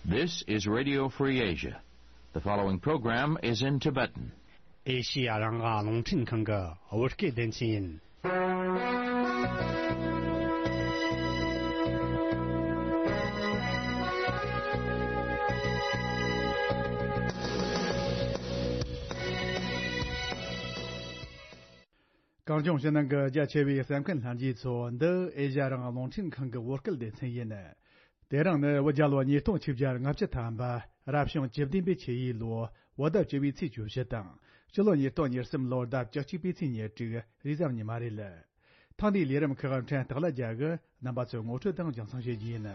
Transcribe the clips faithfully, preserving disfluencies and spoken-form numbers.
This is Radio Free Asia. The following program is in Tibetan. ཨེ་ཤི་ཡ་རང་དབང་རླུང་འཕྲིན་ཁང་གི་བོད་སྐད་སྡེ་ཚན་ཡིན། གངས་ལྗོངས་ཕྱི་ནང་གི་རྒྱ་ཆེ་བའི་གསན་མཁན་ལྷན་རྒྱས་ཚོ། འདི་ཨེ་ཤ་ཡ་རང་དབང་རླུང་འཕྲིན་ཁང་གི་བོད་སྐད་སྡེ་ཚན་ཡིན། དེ་རིང་ནི་བོད་རྒྱལ་ལོ་ཉིས་སྟོང་ཆིག་བརྒྱ་ལྔ་བཅུ་ཐམ་པ། རབ་བྱུང་བཅུ་བདུན་པའི་ཆུ་ཡོས་ལོ། བོད་ཟླ་བཅུ་བའི་ཚེས་བཅུ་བཞི་དང་། སྤྱི་ལོ་ཉིས་སྟོང་ཉེར་གསུམ་ལོར་ཟླ་བཅུ་གཅིག་པའི་ཚེས་ཉེར་དྲུག་རེས་གཟའ་ཉི་མ་རེད། ཐེངས་འདིའི་ལས་རིམ་ཁག་ཕྲན་སྟག་ལ་རྒྱལ་གྱིས་རྣམ་པ་ཚོའི་ངོ་སྤྲོད་དང་རྒྱང་སྲིང་ཞུ་རྒྱུ་ཡིན།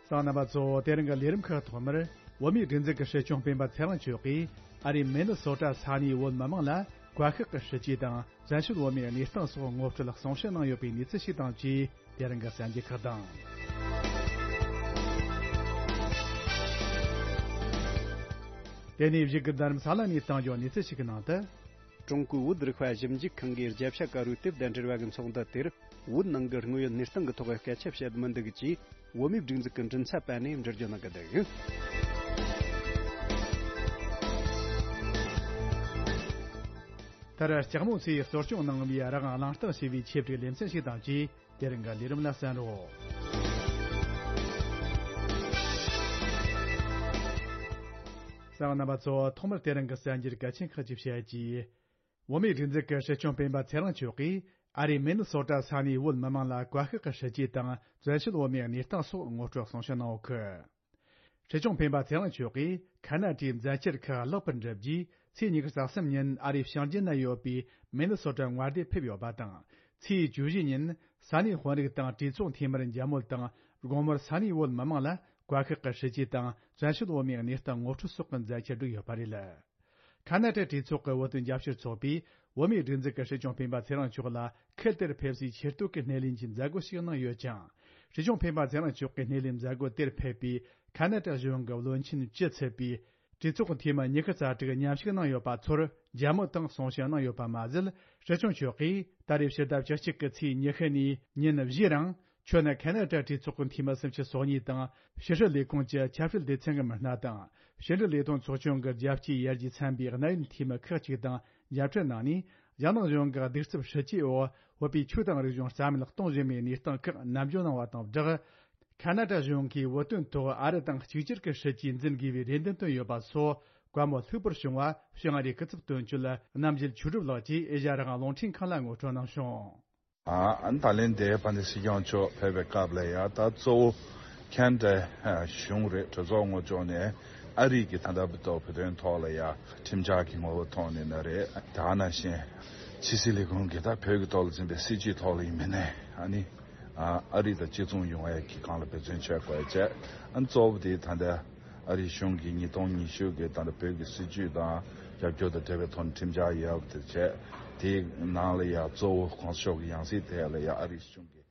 གསན་མཁན་རྣམ་པ་ཚོ། དེ་རིང་གི་ལས་རིམ་ཁག་ཐོག་མར། བོད་མིའི་སྒྲིག་འཛུགས་ཀྱི་སྲིད་སྐྱོང་སྤེན་པ་ཚེ་རིང་མཆོག་གིས་ཨ་རིའི་མི་ནི་སོ་ཊ་ས་གནས་བོད་མི་མང་ལ་བཀའ་ཤག་གི་སྲིད་ཇུས་དང་བཙན་བྱོལ་བོད་མིའི་གནས་སྟངས་སོགས་ངོ་སྤྲོད་གསུང་བཤད་གནང་ཡོད་པའི་གནས་ཚུལ་ཞིག་དང་བཅས། དེ་རིང་གི་གསར་འགྱུར་ཁག་དང་། དེ་ནས་གཞུག་གི་འཛིན་རིམ་ས་ལ་ནས་གཏང་རྒྱུའི་གནས་ཚུལ་ཞིག་གི་ནང་དུ། ཀྲུང་གོའི་བོད་རིག་པ་ཞིབ་འཇུག་ཁང་གིས་རྒྱལ་ཕྱི་དཀར་པོའི་དེབ་དང་འབྲེལ་བ་གི་ཚོགས་འདུ་དེར། བོད་ནང་གི་དངོས་ཡོད་གནས་སྟངས་ཀྱི་ཐོག་སྐད་ཆ་བཤད་མི་འདུག་ཅེས། བོད་མིའི་སྒྲིག་འཛུགས་ཀྱི་མགྲིན་ཚབ་པ་ནས་འགྲེལ་བརྗོད་གནང་གི་འདུག། མཐར་ལྕགས་མོ་ཚོས་གསོ་སྐྱོང་གནང་བའི་རང་དབང་གླེང་སྟེགས་ཞེས་པའི་ཆེད་བསྒྲིགས་ལེ་ཚན་ཞིག་དང་བཅས། དེ་རིང་གི་ལས་རིམ་ལ་གསན་རོགས། གསན་མཁན་རྣམ་པ་ཚོ། ཐོག་མར་དེ་རིང་གི་གསར་འགྱུར་གལ་ཆེན་ཁག་ཅིག་བཤད་རྒྱུ། བོད་མིའི་སྒྲིག་འཛུགས་ཀྱི་སྲིད་སྐྱོང་སྤེན་པ་ཚེ་རིང་མཆོག་གིས་ཨ་རིའི་མི་ནི་སོ་ཊ་ས་གནས་བོད་མི་མང་ལ་བཀའ་ཤག་གི་སྲིད་ཇུས་དང་བཙན་བྱོལ་བོད་མིའི་གནས་སྟངས་སོགས་ངོ་སྤྲོད་གསུང་བཤད་གནང་ཡོད་གི། སྲིད་སྐྱོང་སྤེན་པ་ཚེ་རིང་མཆོག་གིས་ཁ་ན་ཏའི་མཛད་འཆར་ཁག་ལེགས་པར་འགྲུབ་རྗེས། ཚེས་ཉི་ཤུ་རྩ་གསུམ་ཉིན་ཨ་རིའི་ཞིང་ཆེན་ན་ཡོད་པའི་མི་ནི་སོ་ཊ་མངའ་སྡེར་ཕེབས་ཡོད་པ་དང་། ཚེས་བཅུ་བཞི་ཉིན་ས་གནས་དཔོན་རིགས་དང་གྲོས་ཚོགས་འཐུས་མིར་མཇལ་མོལ་དང་། དགོང་མོར་ས་གནས་བོད་མི་མང་ལ་བཀའ་ཤག་གི་སྲིད་ཇུས་དང་བཙན་བྱོལ་བོད་མིའི་གནས་སྟངས་ངོ་སྤྲོད་སོགས་ཀྱི་མཛད་འཆར་བསྒྲིགས་ཡོད་པ་རེད། ཁ་ན་ཏའི་གྲོས་ཚོགས་ཀྱི་བོད་དོན་རྒྱབ་སྐྱོར་ཚོགས་པས། བོད་མིའི་སྒྲིག་འཛུགས་ཀྱི་སྲིད་སྐྱོང་སྤེན་པ་ཚེ་རིང་མཆོག་ལ་ཁུལ་དེར་ཕེབས་སའི་ཆེ་བསྟོད་ཀྱི་སྣེ་ལེན་གྱི་མཛད་སྒོ་ཞིག་གནང་ཡོད་ཅིང་། སྲིད་སྐྱོང་སྤེན་པ་ཚེ་རིང་མཆོག་གི་སྣེ་ལེན་མཛད་སྒོ་དེར་ཕེབས་པའི་ཁ་ན་ཏ་གཞུང་གི་བློན་ཆེན་བཅུ་ཚུད་པའི་གྲོས་ཚོགས་འཐུས་མི་ཉི་ཤུ་རྩ་དྲུག་མཉམ་ཞུགས་གནང་ཡོད་པ་ཚོར་མཇལ་མོལ་དང་གསུང་བཤད་གནང་ཡོད་པ་མ་ཟད། སྲིད་སྐྱོང་མཆོག་གིས་ད་རེས་ཕྱི་ཟླ་བཅུ་གཅིག་གི་ཚེས་ཉི་ཤུ་ནས་ཉིན་བཞིའི་རིང་། ཁྱོད་ནི་ཁ་ན་ཏ་གྲོས་ཚོགས་ཀྱི་འཐུས་མི་སུམ་ཅུ་སོ་གཉིས་དང་། ཕྱི་སྲིད་ལས་ཁུངས་ཀྱི་ཆབ་སྲིད་སྡེ་ཚན་གྱི་མི་སྣ་དང་། ཕྱི་འབྲེལ་ལས་དོན་ཚོགས་ཆུང་གི་རྒྱལ་སྤྱིའི་ཡར་རྒྱས་ཚན་པའི་གནད་ཡོད་འཐུས་མི་ཁག་ཅིག་དང་མཇལ་འཕྲད་གནང་ནས། རྒྱ་ནག་གཞུང་གི་གདུག་རྩུབ་སྲིད་ཇུས་འོག་བོད་པའི་ཆོས་དང་རིག་གཞུང་རྩ་མེད་གཏོང་བཞིན་པའི་གནས་སྟངས་ཁག་ནན་བརྗོད་གནང་བ་དང་སྦྲགས། ཁ་ན་ཏ་གཞུང་གིས་བོད་དོན་ཐོག་ཨ་རི་དང་གཅིག་གྱུར་གྱི་སྲིད་ཇུས་འཛིན་དགོས་པའི་རེ་འདུན་བཏོན་ཡོད་པ་སོགས་བཀའ་མོལ་ལྷུག་པོར་བྱུང་བ། བྱང་ཨ་རིའི་སྐུ་ཚབ་དོན་གཅོད་རྣམ་རྒྱལ་ཆོས་གྲུབ་ལགས་ཀྱིས་ཨེ་ཤ་ཡ་རང་དབང་རླུང་འཕྲིན་ཁང་ལ་ངོ་སྤྲོད་གནང་བྱུང་། ཨ་ནི་ད་ལན་དེ་དཔལ་ལྡན་སྲིད་སྐྱོང་མཆོག་ཕེབས་པའི་སྐབས་ལ་ཡ། ད་གཙོ་བོ་ཁ་ན་ཏ་གཞུང་རེད། གྲོས་ཚོགས་ངོས་ཕྱོགས་ནས་ཨ་རི་གི་ད་ལྟ་བར་དུ་བོད་དོན་ཐོག་ལ་ཡ་ཁྲིམས་འཆར་གྱི་ངོ་བོ་ཐོག་ནས་ན་རེད། དེ་ནང་བཞིན་ཕྱི་སྲིད་ལས་ཁུངས་ཀྱི་ད་བོད་ཀྱི་ཐོག་ལ་འཛིན་པའི་སྲིད་ཇུས་ཐོག་ལ་ཡིན་མིན་ནས། ཨ་ནི་ཨ་རི་དང་གཅིག་མཚུངས་ཡོང་ཡ་གི་སྒང་ལ་འབད་བརྩོན་བྱེད་དགོས་ཡ་བྱས། ཨ་ནི་གཙོ་བོ་དེ་ད་ལྟ་ཨ་རིའི་གཞུང་གིས་ཉིས་སྟོང་ཉི་ཤུ་གི་ད་ལྟ་བོད་ཀྱི་སྲིད་ཇུས་དང་རྒྱབ་སྐྱོར་དང་འབྲེལ་བའི་ཐོག་ནས་ཁྲིམས་འཆར་ཡོད་པ་དེ་བྱས། དེའི་ནང་ལ་ཡ་གཙོ་བོ་གོང་ས་མཆོག་གི་ཡང་སྲིད་དེ་ལ་ཡ་ཨ་རིའི་གཞུང་གིས།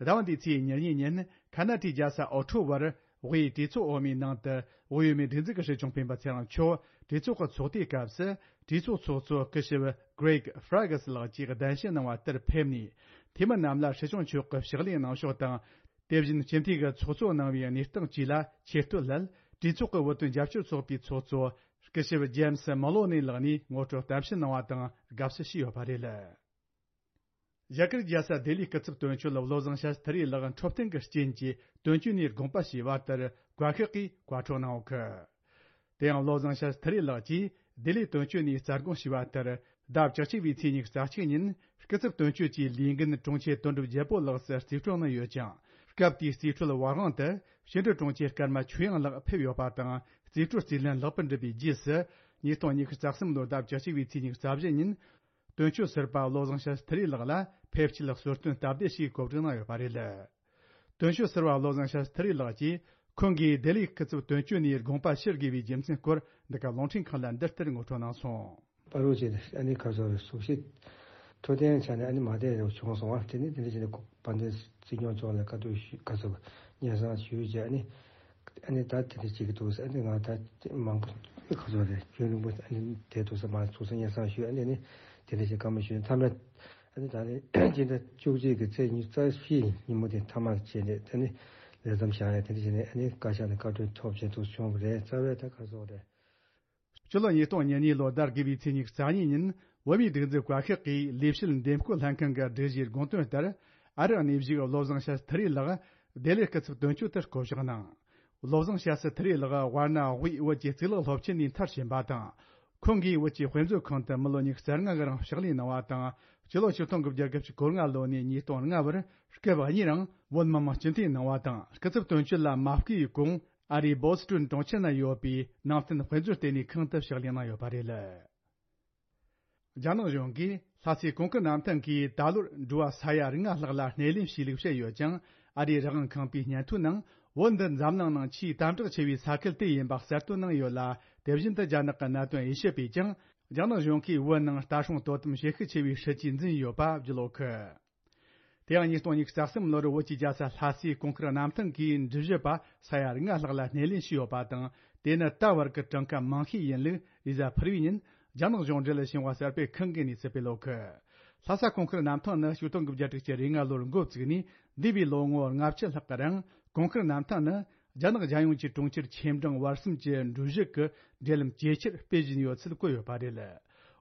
ཟླ་བ་འདིའི་ཚེས་ཉེར་གཉིས་ཉིན་ཁ་ན་ཏའི་རྒྱལ་ས་ཨོ་ཊོ་བར་དབུས་གྲོས་ཚོགས་འོག་མའི་ནང་དུ་དབུས་བོད་མིའི་སྒྲིག་འཛུགས་ཀྱི་སྲིད་སྐྱོང་སྤེན་པ་ཚེ་རིང་མཆོག་གྲོས་ཚོགས་ཀྱི་ཚོགས་དུས་སྐབས་སུ་གྲོས་ཚོགས་ཚོགས་གཙོ་སྐུ་ཞབས་Greg Fergus ལགས་ཀྱིས་གདན་ཞུ་གནང་བ་ལྟར་ཕེབས་ནས། འཐུས་མི་རྣམས་ལ་སྲིད་སྐྱོང་མཆོག་གི་ཕྱག་ལས་གནང་ཕྱོགས་དང་། དེ་བཞིན་སྤྱི་འཐུས་ཀྱི་ཚོགས་གཙོ་གནང་བའི་གནས་སྟངས་བཅས་ལ་ཆེ་བསྟོད་སླད། གྲོས་ཚོགས་ཀྱི་བོད་དོན་རྒྱབ་སྐྱོར་ཚོགས་པའི་ཚོགས་གཙོ་སྐུ་ཞབས་James Maloney ལགས་ནས་ངོ་སྤྲོད་གཏམ་བཤད་གནང་བ་དང་དགའ་བསུ་ཞུས་ཡོད་པ་རེད། རྒྱ་གར་རྒྱལ་ས་ལྡི་ལིའི་སྐུ་ཚབ་དོན་གཅོད་བློ་བཟང་ཤཱསྟྲི་ལགས་འཕྲོད་བསྟེན་གྱི་རྐྱེན་གྱིས་དོན་གཅོད་ནས་དགོངས་པ་ཞུས་པ་ལྟར་བཀའ་ཤག་གིས་བཀའ་འཁྲོལ་གནང་ཡོད་གི། དེ་ཡང་བློ་བཟང་ཤཱསྟྲི་ལགས་ཀྱིས་ལྡི་ལིའི་དོན་གཅོད་ནས་རྩ་དགོངས་ཞུས་པ་ལྟར། ཟླ་བཅུ་གཅིག་པའི་ཚེས་ཉི་ཤུ་རྩ་གཅིག་ཉིན་སྐུ་ཚབ་དོན་གཅོད་ཀྱི་ལས་འགན་དྲུང་ཆེ་དོན་གྲུབ་རྒྱལ་པོ་ལགས་སུ་རྩིས་སྤྲོད་གནང་ཡོད་ཅིང་། སྐབས་དེའི་རྩིས་སྤྲོད་པ་དབང་དུ་ཕྱི་འབྲེལ་དྲུང་ཆེ་ཀརྨ་ཆོས་དབྱངས་ལགས་ཕེབས་ཡོད་པ་དང་། རྩིས་སྤྲོད་རྩིས་ལེན་ལེགས་པར་འགྲུབ་པའི་རྗེས་སུ། ཉིས་སྟོང་ཉི་ཤུ་རྩ་གསུམ་ལོའི་ཟླ་བཅུ་གཅིག་པའི་ཚེས་ཉི་ཤུ་རྩ་བཞི་ཉིན། དོན་གཅོད་ཟུར་པ་བློ་བཟང་ཤཱསྟྲི་ལགས་ལ་ཕེབས་སྐྱེལ་གསོལ་སྟོན་སྟབས་བདེ་ཞེས་གོ་སྒྲིག་གནང་ཡོད་པ་རེད། དོན་གཅོད་ཟུར་པ་བློ་བཟང་ཤཱསྟྲི་ལགས་ཀྱིས་ཁོང་གིས་ལྡི་ལིའི་སྐུ་ཚབ་དོན་གཅོད་ནས་དགོངས་པ་ཞུ་དགོས་པའི་རྒྱུ་མཚན་སྐོར་འདི་ག་རླུང་འཕྲིན་ཁང་ལ་འདི་ལྟར་ངོ་སྤྲོད་གནང་སོང་། པ་རུ་ཅེ་ཨ་ནི་ཁ་སོ་རེ་གཟུགས་གཞི་འཕྲོད་བསྟེན་ཆ་ནས་ཨ་ནི་མ་བསྡད་རེ་བྱུང་སོང་བ། དེ་ནི་དེ་འདྲ་བྱས་ནས་དཔལ་ལྡན་སྲིད་སྐྱོང་མཆོག་ལ་བཀའ་བསྡུར་ཞུ་ཁ་སོ་སྙན་སེང་ཞུས་རྗེས་ཨ་ནི། ཨ་ནི་ད་དེ་འདྲ་བྱེད་ཀྱི་འདུག་ཟེར། ཨ་ནི་ང་ད་མང་པོ་ཁ་སོ་རེ་རྒྱུན་རིང་པོ་ཨ་ནི་བསྡད་འདུག་ཟེར་མ་ཚོགས་སུ་སྙན་སེང་ཞུས། ཨ་ནི་ནི་དེ་འདྲ་བྱས་བཀའ་མོལ་ཞུས་ནས་མཐའ་མ། ཨ་ནི་ད་ནི་སྤྱི་ཟླ་བཅུ་གཅིག་གི་ཚེས་ཉི་ཤུ་རྩ་བཞི་ཉིན་མོ་དེ་མཐའ་མར་བྱས་ནས་ད་ནི་ལས་མཚམས་བཞག་ཡ་དེ་འདྲ་བྱས་ནས། ཨ་ནི་བཀའ་ཤག་ནས་བཀའ་འཁྲོལ་ཐོབ་བྱས་འདུག་བྱུང་བ་རེད། རྩ་བའི་ད་ག་སོགས་རེད། སྤྱི་ལོ་ཉིས་སྟོང་ཉེར་གཉིས་ལོ་ཟླ་དགུ་པའི་ཚེས་ཉི་ཤུ་རྩ་གཉིས་ཉིན་བོད་མིའི་སྒྲིག་འཛུགས་བཀའ་ཤག་གིས་ལས་བྱེད་འདེམས་བསྐོ་ལྷན་ཁང་གི་སྒྲིག་གཞིའི་དགོངས་དོན་ལྟར། ཨ་རིའི་གནས་བཞུགས་བློ་བཟང་ཤཱ་སྟྲི་ལགས་ལྡི་ལི་སྐུ་ཚབ་དོན་གཅོད་དུ་བསྐོ་གཞག་གནང་། བློ་བཟང་ཤཱ་སྟྲི་ལགས་དབར་གནའ་དབུས་བོད་ཀྱི་གཙུག་ལག་སློབ་ཆེན་ནས་མཐར་ཕྱིན་པ་དང་། ཁོང་གིས་བོད་ཀྱི་དཔེ་མཛོད་ཁང་དུ་མི་ལོ་ཉི་ཤུ་རྩ་ལྔ་གི་རིང་ཕྱག་ལས་གནང་བ་དང་། སྤྱི་ལོ་ཆིག་སྟོང་དགུ་བརྒྱ་དགུ་བཅུ་གོ་ལྔ་ལོ་ནས་ཉིས་སྟོང་ལྔ་བར་སྐབས་གཉིས་རིང་བོད་མི་མང་སྤྱི་འཐུས་གནང་བ་དང་། སྐུ་ཚབ་དོན་གཅོད་ལ་མ་བསྐོས་གོང་ཨ་རིའི་བོ་སི་ཊོན་གྲོང་ཁྱེར་ན་ཡོད་པའི་ནང་བསྟན་དཔེ་མཛོད་ལྟེ་གནས་ཁང་དུ་ཕྱག་ལས་གནང་ཡོད་པ་རེད། རྒྱ་ནག་གཞུང་གིས་ལྷ་སའི་གོང་ཁུལ་གནམ་ཐང་གིས་ད་ལོར་འགྲོ་བ་ས་ཡ་ལྔ་ལྷག་ལ་སྣེ་ལེན་བྱས་ལུགས་བཤད་ཡོད་ཀྱང་། ཨ་རིའི་རང་དབང་ཁང་པའི་སྙན་ཐོའི་ནང་བོད་འདི་འཛམ་གླིང་ནང་ཆེས་དམ་དྲག་ཆེ་བའི་ས་ཁུལ་དེ་ཡིན་པ་གསལ་སྟོན་གནང་ཡོད་ལ། དེ་བཞིན་དུ་རྒྱ་ནག་གི་གནད་དོན་དབྱེ་ཞིབ་པས་ཀྱང་རྒྱ་ནག་གཞུང་གིས་བོད་ནང་ལྟ་སྲུང་དོ་དམ་བྱེད་ཤུགས་ཆེ་བའི་སྲིད་ཇུས་འཛིན་ཡོད་པ་བརྗོད་ཡོད་གི། དེ་ཡང་ཉིས་སྟོང་ཉི་ཤུ་རྩ་གསུམ་ལོར་བོད་ཀྱི་རྒྱལ་ས་ལྷ་སའི་གོང་ཁུལ་གནམ་ཐང་གི་འགྲུལ་བཞུད་པ་ས་ཡ་ལྔ་ལྷག་ལ་སྣེ་ལེན་བྱས་ཡོད་པ་དང་། དེ་ནི་ད་བར་གྱི་གྲངས་ཀ་མང་ཤོས་ཡིན་ལུགས་རེས་གཟའ་ཕུར་བུའི་ཉིན་རྒྱ་ནག་གཞུང་འབྲེལ་ཞིང་པ་གསར་སྤེལ་ཁང་གི་གནས་ཚུལ་སྤེལ་ཡོད་གི། ལྷ་ས་གོང་ཁུལ་གནམ་ཐང་ནི་ཆིག་སྟོང་དགུ་བརྒྱ་དྲུག་ཅུ་རེ་ལྔ་ལོར་འགོ་བཙུགས་ནས་འདས་པའི་ལོ་ངོ་ལྔ་བཅུ་ལྷག་གི་རིང་། གོང་ཁུལ་གནམ་ཐང་ནི་རྒྱ་ནག་རྒྱལ་ཡོངས་ཀྱི་གྲོང་ཁྱེར་ཆེ་འབྲིང་བར་གསུམ་གྱི་འགྲུལ་བཞུད་ཀྱི་འབྲེལ་ལམ་ཇེ་ཆེར་སྤེལ་བཞིན་ཡོད་ཚུལ་བཀོད་ཡོད་པ་རེད།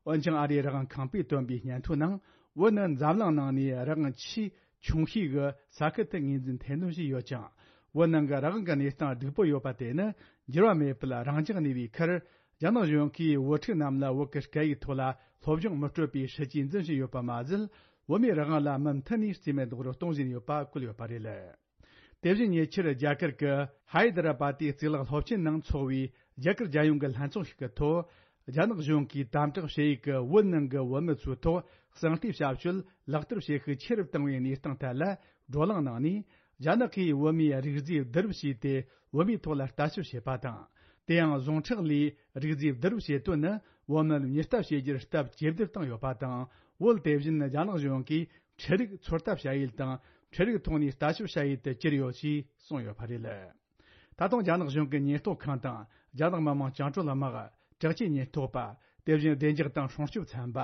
འོན་ཀྱང་ཨ་རིའི་རང་དབང་ཁང་པས་བཏོན་པའི་སྙན་ཐོའི་ནང་། བོད་ནི་འཛམ་གླིང་ནང་ནས་རང་དབང་ཆེས་ཆུང་ཤོས་ཀྱི་ས་ཁུལ་དུ་ངོས་འཛིན་ཐེར་འདོན་བྱས་ཡོད་ཅིང་། བོད་ནང་གི་རང་དབང་གི་གནས་སྟངས་སྡུག་པོ་ཡོད་པ་དེ་ནི་འགྱུར་བ་མེད་པར་རང་འཇགས་གནས་པའི་ཁར། རྒྱ་ནག་གཞུང་གིས་བོད་ཕྲུག་རྣམས་ལ་བོད་ཀྱི་སྐད་ཡིག་ཐོག་ལ་སློབ་སྦྱོང་མི་སྤྲོད་པའི་སྲིད་ཇུས་འཛིན་བཞིན་ཡོད་པ་མ་ཟད། བོད་མིའི་རང་དབང་ལ་མུ་མཐུད་ནས་རྩིས་མེད་རྡོག་རོལ་གཏོང་བཞིན་ཡོད་པ་བཀོད་ཡོད་པ་རེད། དེ་བཞིན་ཉེ་ཆར་རྒྱ་གར་གྱི་ཧའི་ད་ར་པ་ཏི་གཙུག་ལག་སློབ་ཆེན་ནང་འཚོགས་པའི་རྒྱ་གར་རྒྱལ་ཡོངས་ཀྱི་ལྷན་ཚོགས་ཤིག་གི་ཐོག་རྒྱ་ནག་གཞུང་གིས་དམ་དྲག་བྱེད་ཡུལ་གྱི་བོད་ནང་གི་བོད་མི་ཚོའི་ཐོག་གསང་སྟེ་བྱ་སྤྱོད་ལག་བསྟར་བྱེད་ཤུགས་ཆེ་རུ་བཏང་བའི་གནས་སྟངས་ཐད་ལ་བགྲོ་གླེང་གནང་ནས། རྒྱ་ནག་གིས་བོད་མིའི་རིགས་རྫས་བསྡུ་རུབ་བྱས་ཏེ་བོད་མིའི་ཐོག་ལ་ལྟ་ཞིབ་བྱེད་པ་དང་། དེ་ཡང་ཟུངས་ཁྲག་ལས་རིགས་རྫས་བསྡུ་རུབ་བྱེད་དོན་ནི་བོད་མིར་མྱུར་ལྟ་བྱེད་རྒྱུར་སྟབས་ཇེ་བདེར་བཏང་ཡོད་པ་དང་། བོད་དེ་བཞིན་རྒྱ་ནག་གཞུང་གིས་འཕྲུལ་རིག་ཚོད་ལྟ་བྱ་ཡུལ་དང་། འཕྲུལ་རིག་ཐོག་ནས་ལྟ་ཞིབ་བྱ་ཡུལ་དུ་གྱུར་ཡོད་ཅེས་གསུངས་ཡོད་པ་རེད། ད་དུང་རྒྱ་ནག་གཞུང་གི་ཉེན་རྟོག་ཁང་དང་། རྒྱ་ནག་མི་དམངས་བཅིངས་འགྲོལ་དམག་དྲག་ཆས་ཉེན་རྟོག་པ། དེ་བཞིན་བདེ་འཇགས་དང་སྲུང་སྐྱོབ་ཚན་པ།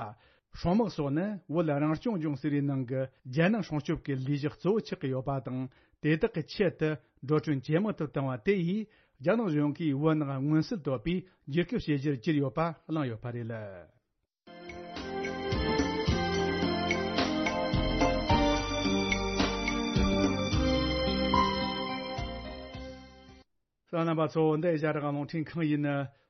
སྲུང་དམག་སོགས་ནི་བོད་རང་སྐྱོང་ལྗོངས་ཟེར་བའི་ནང་གི་རྒྱལ་ནང་སྲུང་སྐྱོབ་ཀྱི་ལས་གཞི་གཙོ་བོ་ཆགས་ཀྱི་ཡོད་པ་དང་། དེ་དག་གི་ཆེད་དུ་འགྲོ་གྲོན་ཇེ་མང་དུ་བཏང་བ་དེ་ཡིས། རྒྱ་ནག་གཞུང་གིས་བོད་ནང་མངོན་གསལ་དོད་པའི་བསྒྱུར་བཅོས་བྱེད་གཞིར་གྱུར་ཡོད་པ་གླེང་ཡོད་པ་རེད། གསན་མཁན་རྣམ་པ་ཚོ། འདི་ཨེ་ཤ་ཡ་རང་དབང་རླུང་འཕྲིན་ཁང་ཡིན།